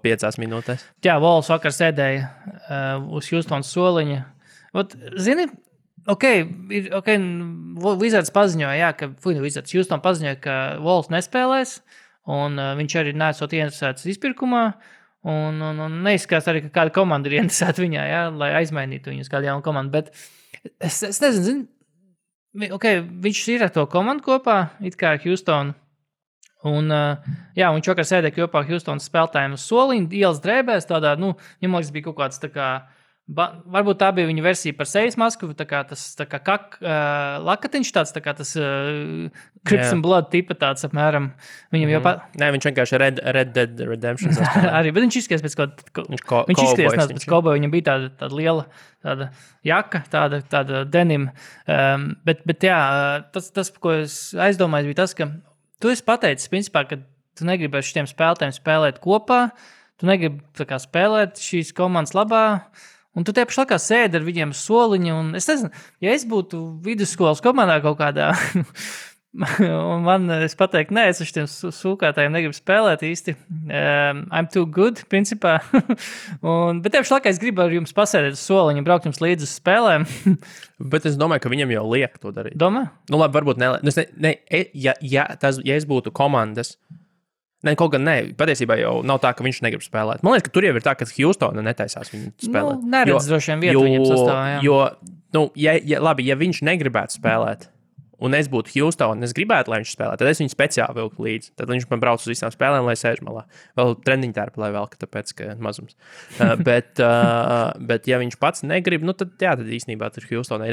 5 minūtēs. Jā, Walls vakar sēdēja uz Houston soliņa. Zini, Wizards paziņoja, Houston paziņoja, ka Walls nespēlēs, un viņš arī nesot ieinteresēts izpirkumā, un neizskatās arī, ka kāda komanda ir ieinteresēta viņā, lai aizmainītu viņus kādu jaunu komandu, bet es nezinu, viņš ir ar to komandu kopā, it kā Houston, un viņš vakar sēdēja kopā Houston spēlētājiem uz soliņa, ielas drēbēs, tādā, viņam liekas bija kaut kāds tā kā, varbūt tā bija viņa versija par sejas masku, tā kā tas lakatiņš tāds, tā kā tas Crips and Blood tipa tāds apmēram. Viņam jau Nē, viņš vienkārši Red Dead Redemption arī, bet viņš izskries pēc viņš izskries pēc cowboy, viņam bija tāda liela tāda jaka, tāda denim. Bet tas, ko es aizdomāju, bija tas, ka tu esi pateicis, principā, ka tu negribi ar šitiem spēlētājiem spēlēt kopā, tu negribi tā kā spēlēt šīs komandas labā, un tu tie paši laikā sēdi ar viņiem soliņu, un es nezinu, ja es būtu vidusskolas komandā kaut kādā, un es pateiktu, nē, es ar šiem sūkātājiem negribu spēlēt īsti, I'm too good, principā, bet tie paši laikā es gribu ar jums pasēdēt uz soliņu, braukt jums līdzi uz spēlēm. Bet es domāju, ka viņam jau liek to darīt. Domā? Labi, varbūt ja es būtu komandas, kaut gan patiesībā jau nav tā, ka viņš negrib spēlēt. Man liekas, ka tur jau ir tā, ka Houstona netaisās viņu spēlēt. Neredz droši vien vietu viņam sastāvā, ja viņš negribētu spēlēt, un es būtu Houston, un es gribētu, lai viņš spēlē, tad es viņu speciāli vilku līdzi. Tad viņš man brauc uz visām spēlēm, lai sēž malā. Vēl treniņu tērpu, lai velka, tāpēc, ka mazums. Bet ja viņš pats negrib, tad īstenībā tur Houstonai.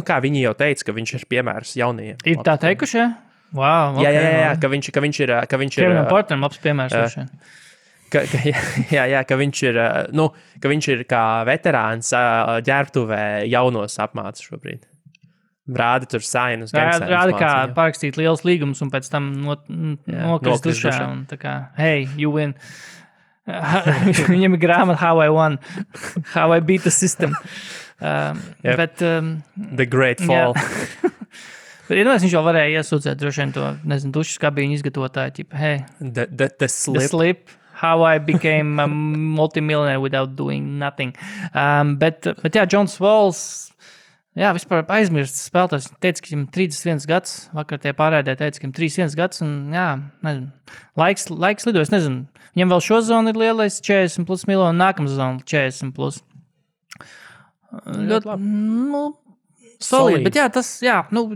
Kā viņi jau teica, ka viņš ir piemērs jaunajiem. Ir tā teikuši, ja? Wow, okay, jā, ka viņš ir Kevinam Porteram labs piemērs. Ka viņš ir kā veterāns ģērbtuvē jaunos apmāca šobrīd. Rāda tur sainus. Rāda kā parakstīt liels līgums un pēc tam nokrist dušā. Un tā kā, hey, you win. Viņam ir grāmata How I Won. How I Beat the System. Bet, The Great Fall. Bet viņš jau varēja iesūdzēt droši vien to, dušas kabīņu izgatavotāju, tipa, hey, the slip. How I became a multimillionaire without doing nothing. Bet Johns Walls, vispār aizmirst spēlētājs, teica, ka viņam 31 gads, vakar tie pārēdē teica, ka viņam 31 gads, un laiks lido, es nezinu, viņam vēl šo zonu ir lielais 40 plus miljonu, nākamā zona 40 plus. Ļoti, solīdi, bet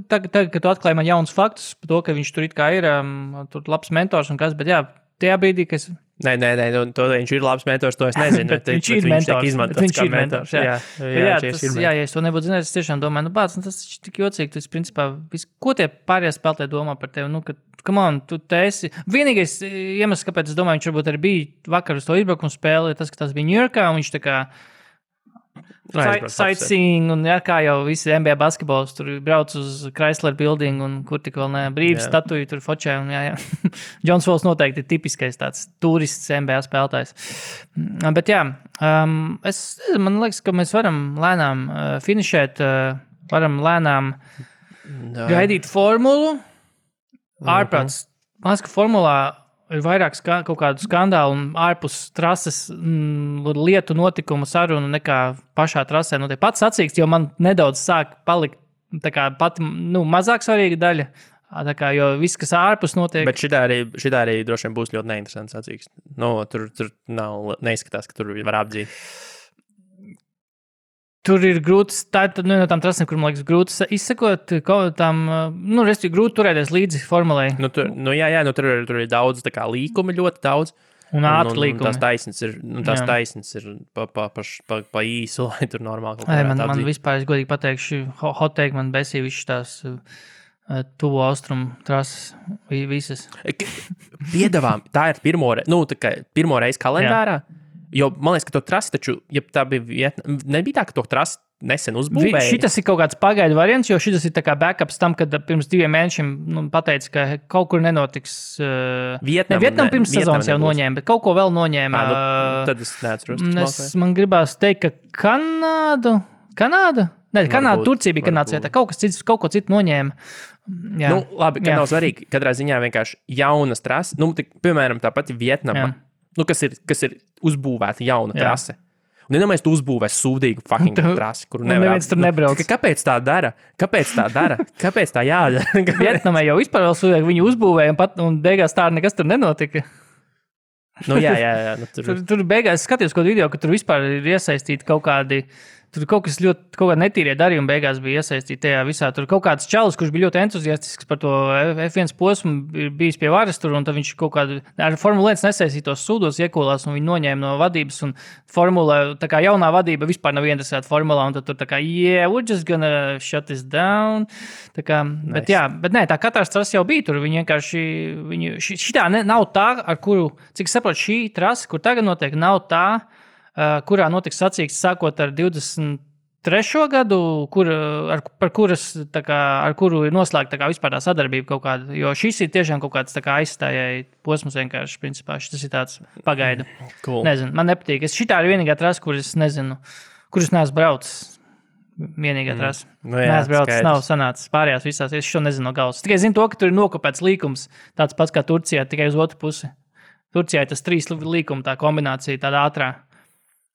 tagad, kad tu atklāji man jauns faktus par to, ka viņš tur it kā ir, tur labs mentors un kas, bet tajā brīdī, ka es... Nē, to viņš ir labs mentors, to es nezinu. bet viņš ir mentors, jā, ja es to nebūtu zinājis, es tiešām domāju, tas ir tik jocīgi, tas principā, ko tie pārējie spēlētāji domā par tevi, ka, come on, tu te esi... Vienīgais iemesls, kāpēc es domāju, viņš varbūt arī bija vakar uz to izbraukumu spēli, tas, ka tas bija Ņujorkā, un viņš tā kā sightseeing, un kā jau visi NBA basketbols tur brauc uz Chrysler Building, un kur tik vēl ne brīvs statuju tur fočē, un Johns Walls noteikti ir tipiskais tāds turists NBA spēlētājs. Bet man liekas, ka mēs varam lēnām finišēt, varam lēnām gaidīt formulu. Ārprāts, man liekas, ka formulā ir vairāk kaut kādu skandālu un ārpus trases lietu notikumu sarunu nekā pašā trasē. Nu, pats sacīksts, jo man nedaudz sāk palikt tā kā pati mazāk svarīga daļa. Tā kā, jo viss, kas ārpus notiek... Bet šitā arī droši vien būs ļoti neinteresants sacīksts. Tur neizskatās, ka tur var apdzīt. Tur ir grūti, tā ir no tām trasēm, kur, man liekas, grūti izsekot tām, respektīvi, grūti turēties līdzi formulai. Tur ir daudz, tā kā līkumi ļoti daudz. Un ātri līkumi. Tās taisnes ir pa īsu, lai tur normāli kaut kā man vispār, es godīgi pateikšu, hot take man besīja višķi tās tuvo austrumu trases visas. Piedāvām, tā ir pirmo reizi kalendārā. Jā. Jo man liekas, ka to trasi taču, ja tā bija nebija tā, ka to trasi nesen uzbūvēja. Šitas ir kaut kāds pagaidu variants, jo šitas ir tā kā backups tam, kad pirms 2 mēnešiem pateica, ka kaut kur nenotiks. Vietnam pirms sezonas jau noņēma, bet kaut ko vēl noņēma. Tad es neatceros. Man gribās teikt, ka Kanāda? Nē, Kanāda, Turcija bija Kanādas vietā. Kaut ko citu noņēma. Jā. Labi, ka nav svarīgi. Katrā ziņā vienkārši jaunas trases. Piemēram, tā pati Vietnama. Kas ir uzbūvēta jauna trase. Un iedomājies, tu uzbūvēsi sūdīgu fucking trasi, kuru neviens tur nebrauc. Kāpēc tā dara? Kāpēc tā jādara? Vietnamai jau vispār vēl sūdīgi viņu uzbūvēja, un beigās tā nekas tur nenotika. Jā. Tur beigās skatījos kaut video, ka tur vispār ir iesaistīti kaut kādi... Tur kaut kādi netīrie darījumi beigās bija iesaistīti tajā visā. Tur kaut kāds čalis, kurš bija ļoti entuziastisks par to F1 posmu, bijis pie varas tur, un tad viņš kaut kādu ar Formula 1 nesaistītos sūdos iekolās, un viņi noņēma no vadības, un Formula, tā kā jaunā vadība vispār nav interesēta Formulā, un tad tur tā kā, we're just gonna shut this down. Tā kā, nice. bet nē, tā katrs trasa jau bija tur, viņi vienkārši, šitā nav tā, ar kuru, cik saprot, šī trasa, kur tagad notiek, nav tā, kurā notiks sacīksts sākot ar 23. gadu, ar kuru ir noslēgta vispār tā sadarbība kaut kāda, jo šis ir tiešām kaut kāds aizstājai posms vienkārši, principā, šis ir tāds pagaidu. Cool. Nezinu, man nepatīk. Šitā ir vienīgā trasa, kuras neesmu braucis. Vienīgā trasa. Neesmu braucis, nav sanācis pārējās visās, es šo nezinu no galvas. Tikai zinu to, ka tur ir nokopēts līkums, tāds pats kā Turcijā, tikai uz otru pusi. Turcijā ir tas 3 līkuma, tā kombinācija, tāda ātrā.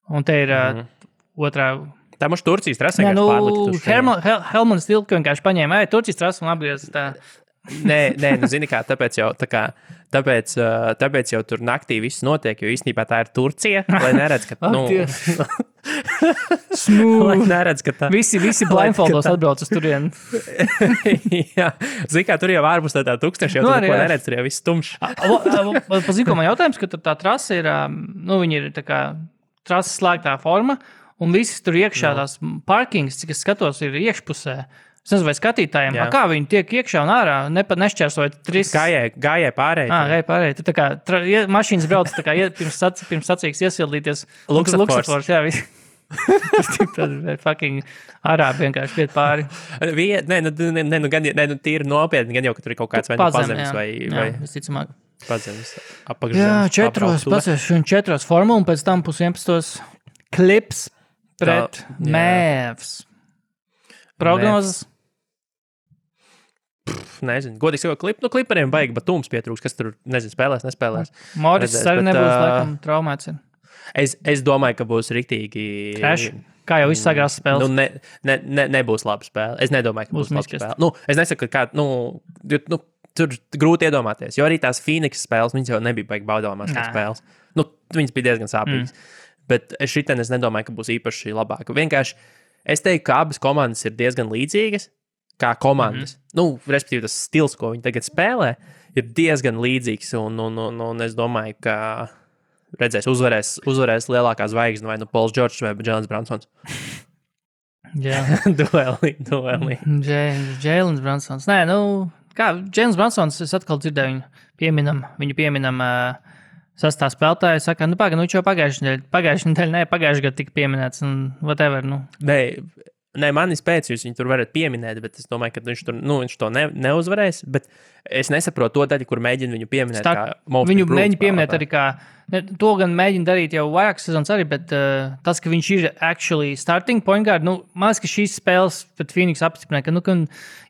Un te ir otrā... Tā mums Turcijas trasa vienkārši pārlikta. Helmuns Tilke vienkārši paņēma, Turcijas trasa un apgriez tā. Nē, zini kā, tāpēc jau tur naktī viss notiek, jo īstenībā tā ir Turcija, lai neredz, ka... Smooth. Lai neredz, ka tā... Visi blindfoldos atbrauc uz turienu. Jā, zini kā, tur jau ārpus tā tūkstoši, jau tur neko neredz, tur jau viss tumšs. Pazīko man jautājums, ka tā trasa ir, viņi ir tā kā trases slēgtā forma, un visi tur iekšā tās parkings, cik es skatos, ir iekšpusē. Es nezinu, vai skatītājiem, kā viņi tiek iekšā un ārā, nešķērsojot 3... Gājēji pārēji. Gājēji pārēji. Tu tā kā mašīnas brauc tā kā pirms sacīks iesildīties. Luksafors, jā, visi. Tad fucking arābi vienkārši iet pāri. Nē, tīri nopietni, gan jau, ka tur ir kaut kāds vai pazemes vai... Visticamāk. Pazemes, apakšzemes. Jā, 4 formula, un pēc tam 11 klips pret Mēvs. Prognozes? Nezinu, godīgi sakot, klipariem baigi batums pietrūks, kas tur, spēlēs, nespēlēs. Moris arī nebūs, laikam, traumēts ir. Es domāju, ka būs riktīgi... Crash? Kā jau viss sagrās spēles? Nebūs laba spēle. Es nedomāju, ka būs laba spēle. Es nesaku, ka tur grūti iedomāties, jo arī tās Phoenix spēles, viņas jau nebija baigi baudāmās spēles. Viņas bija diezgan sāpīgas. Bet šitien es nedomāju, ka būs īpaši labāka. Vienkārši es teiktu, ka abas komandas ir diezgan līdzīgas, kā komandas. Respektīvi, tas stils, ko viņi tagad spēlē, ir diezgan līdzīgs, un es domāju, ka redzēs, uzvarēs lielākā zvaigzne, vai Pauls Džordžs vai Džēlens Bransons. Jā. Duelī. Džēlens Bransons. Nē, kā Džēlens Bransons, es atkal dzirdēju viņu pieminam sastā spēlētāja, saka, viņš jau pagājušajā nedēļā tika pieminēts, un whatever, Nē, Nē, manis pēc jūs viņu tur varat pieminēt, bet es domāju, ka viņš to neuzvarēs. Bet es nesaprotu to daļu, kur mēģina viņu pieminēt. Viņu mēģina pieminēt arī kā. To gan mēģina darīt jau vairākas sezonas arī, bet tas, ka viņš ir actually starting point guard, man liekas, ka šīs spēles pret Phoenix apstiprināja, ka,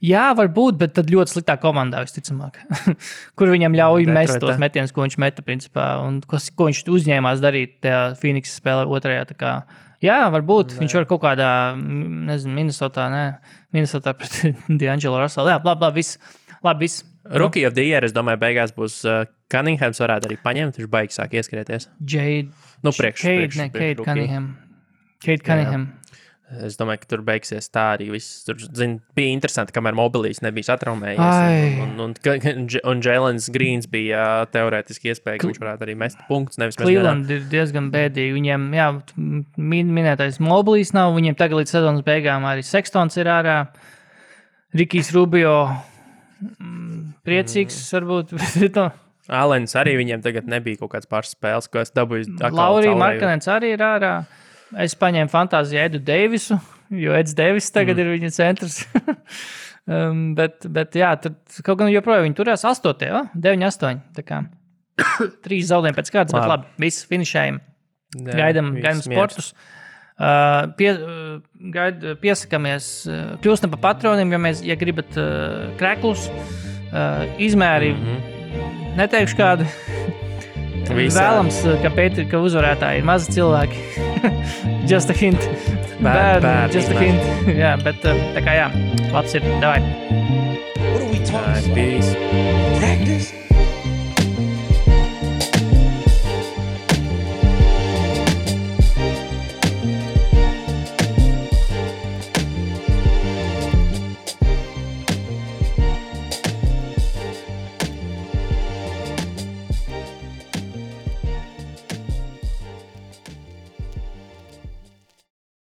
jā, varbūt, bet tad ļoti sliktā komandā, visticamāk. Kur viņam ļauj mest tos metienus, ko viņš meta, principā, un ko viņš uzņēmās darīt tajā Phoenix spēlē otrajā, tā kā. Jā, varbūt viņš var kaut kādā, Minnesotā pret D'Angelo Russell. Jā, labi, viss. Rookie of the Year, es domāju, beigās būs Cunninghams varētu arī paņemt, viņš baigs sāk ieskrieties. Cade Cunningham. Es domāju, ka tur beigsies tā arī viss. Tur, bija interesanti, kamēr mobilīs nebija satraumējies. Un Jēlens Grīns bija teorētiski iespēja, ka viņš varētu arī mest punktus. Cleveland ir diezgan bēdīgi. Viņiem, jā, minētais mobilīs nav. Viņiem tagad līdz sezonas beigām arī Sextons ir ārā. Rikijs Rubio priecīgs varbūt. Alens arī viņiem tagad nebija kaut kāds pāris spēles, ko es dabūju. Laurija Markanens arī ir ārā. Es paņēmu fantāziju Edu Deivisu, jo Eds Deivis tagad ir viņa centrs. bet jā, tad kaut gan joprojām viņi turās 8. 9-8. Tā kā 3 zaudējumi pēc kārtas, bet labi, viss finišējam. Gaidam sportus. Piesakamies, kļūstam pa patroniem, ja gribat krēklus, izmēri, neteikšu kādu. Vēlams, ka uzvarētāji ir mazi cilvēki. Just a hint. Bad, just a hint. Jā, bet tā kā jā, labs ir. Davai. What are we talking about? Peace. Practice?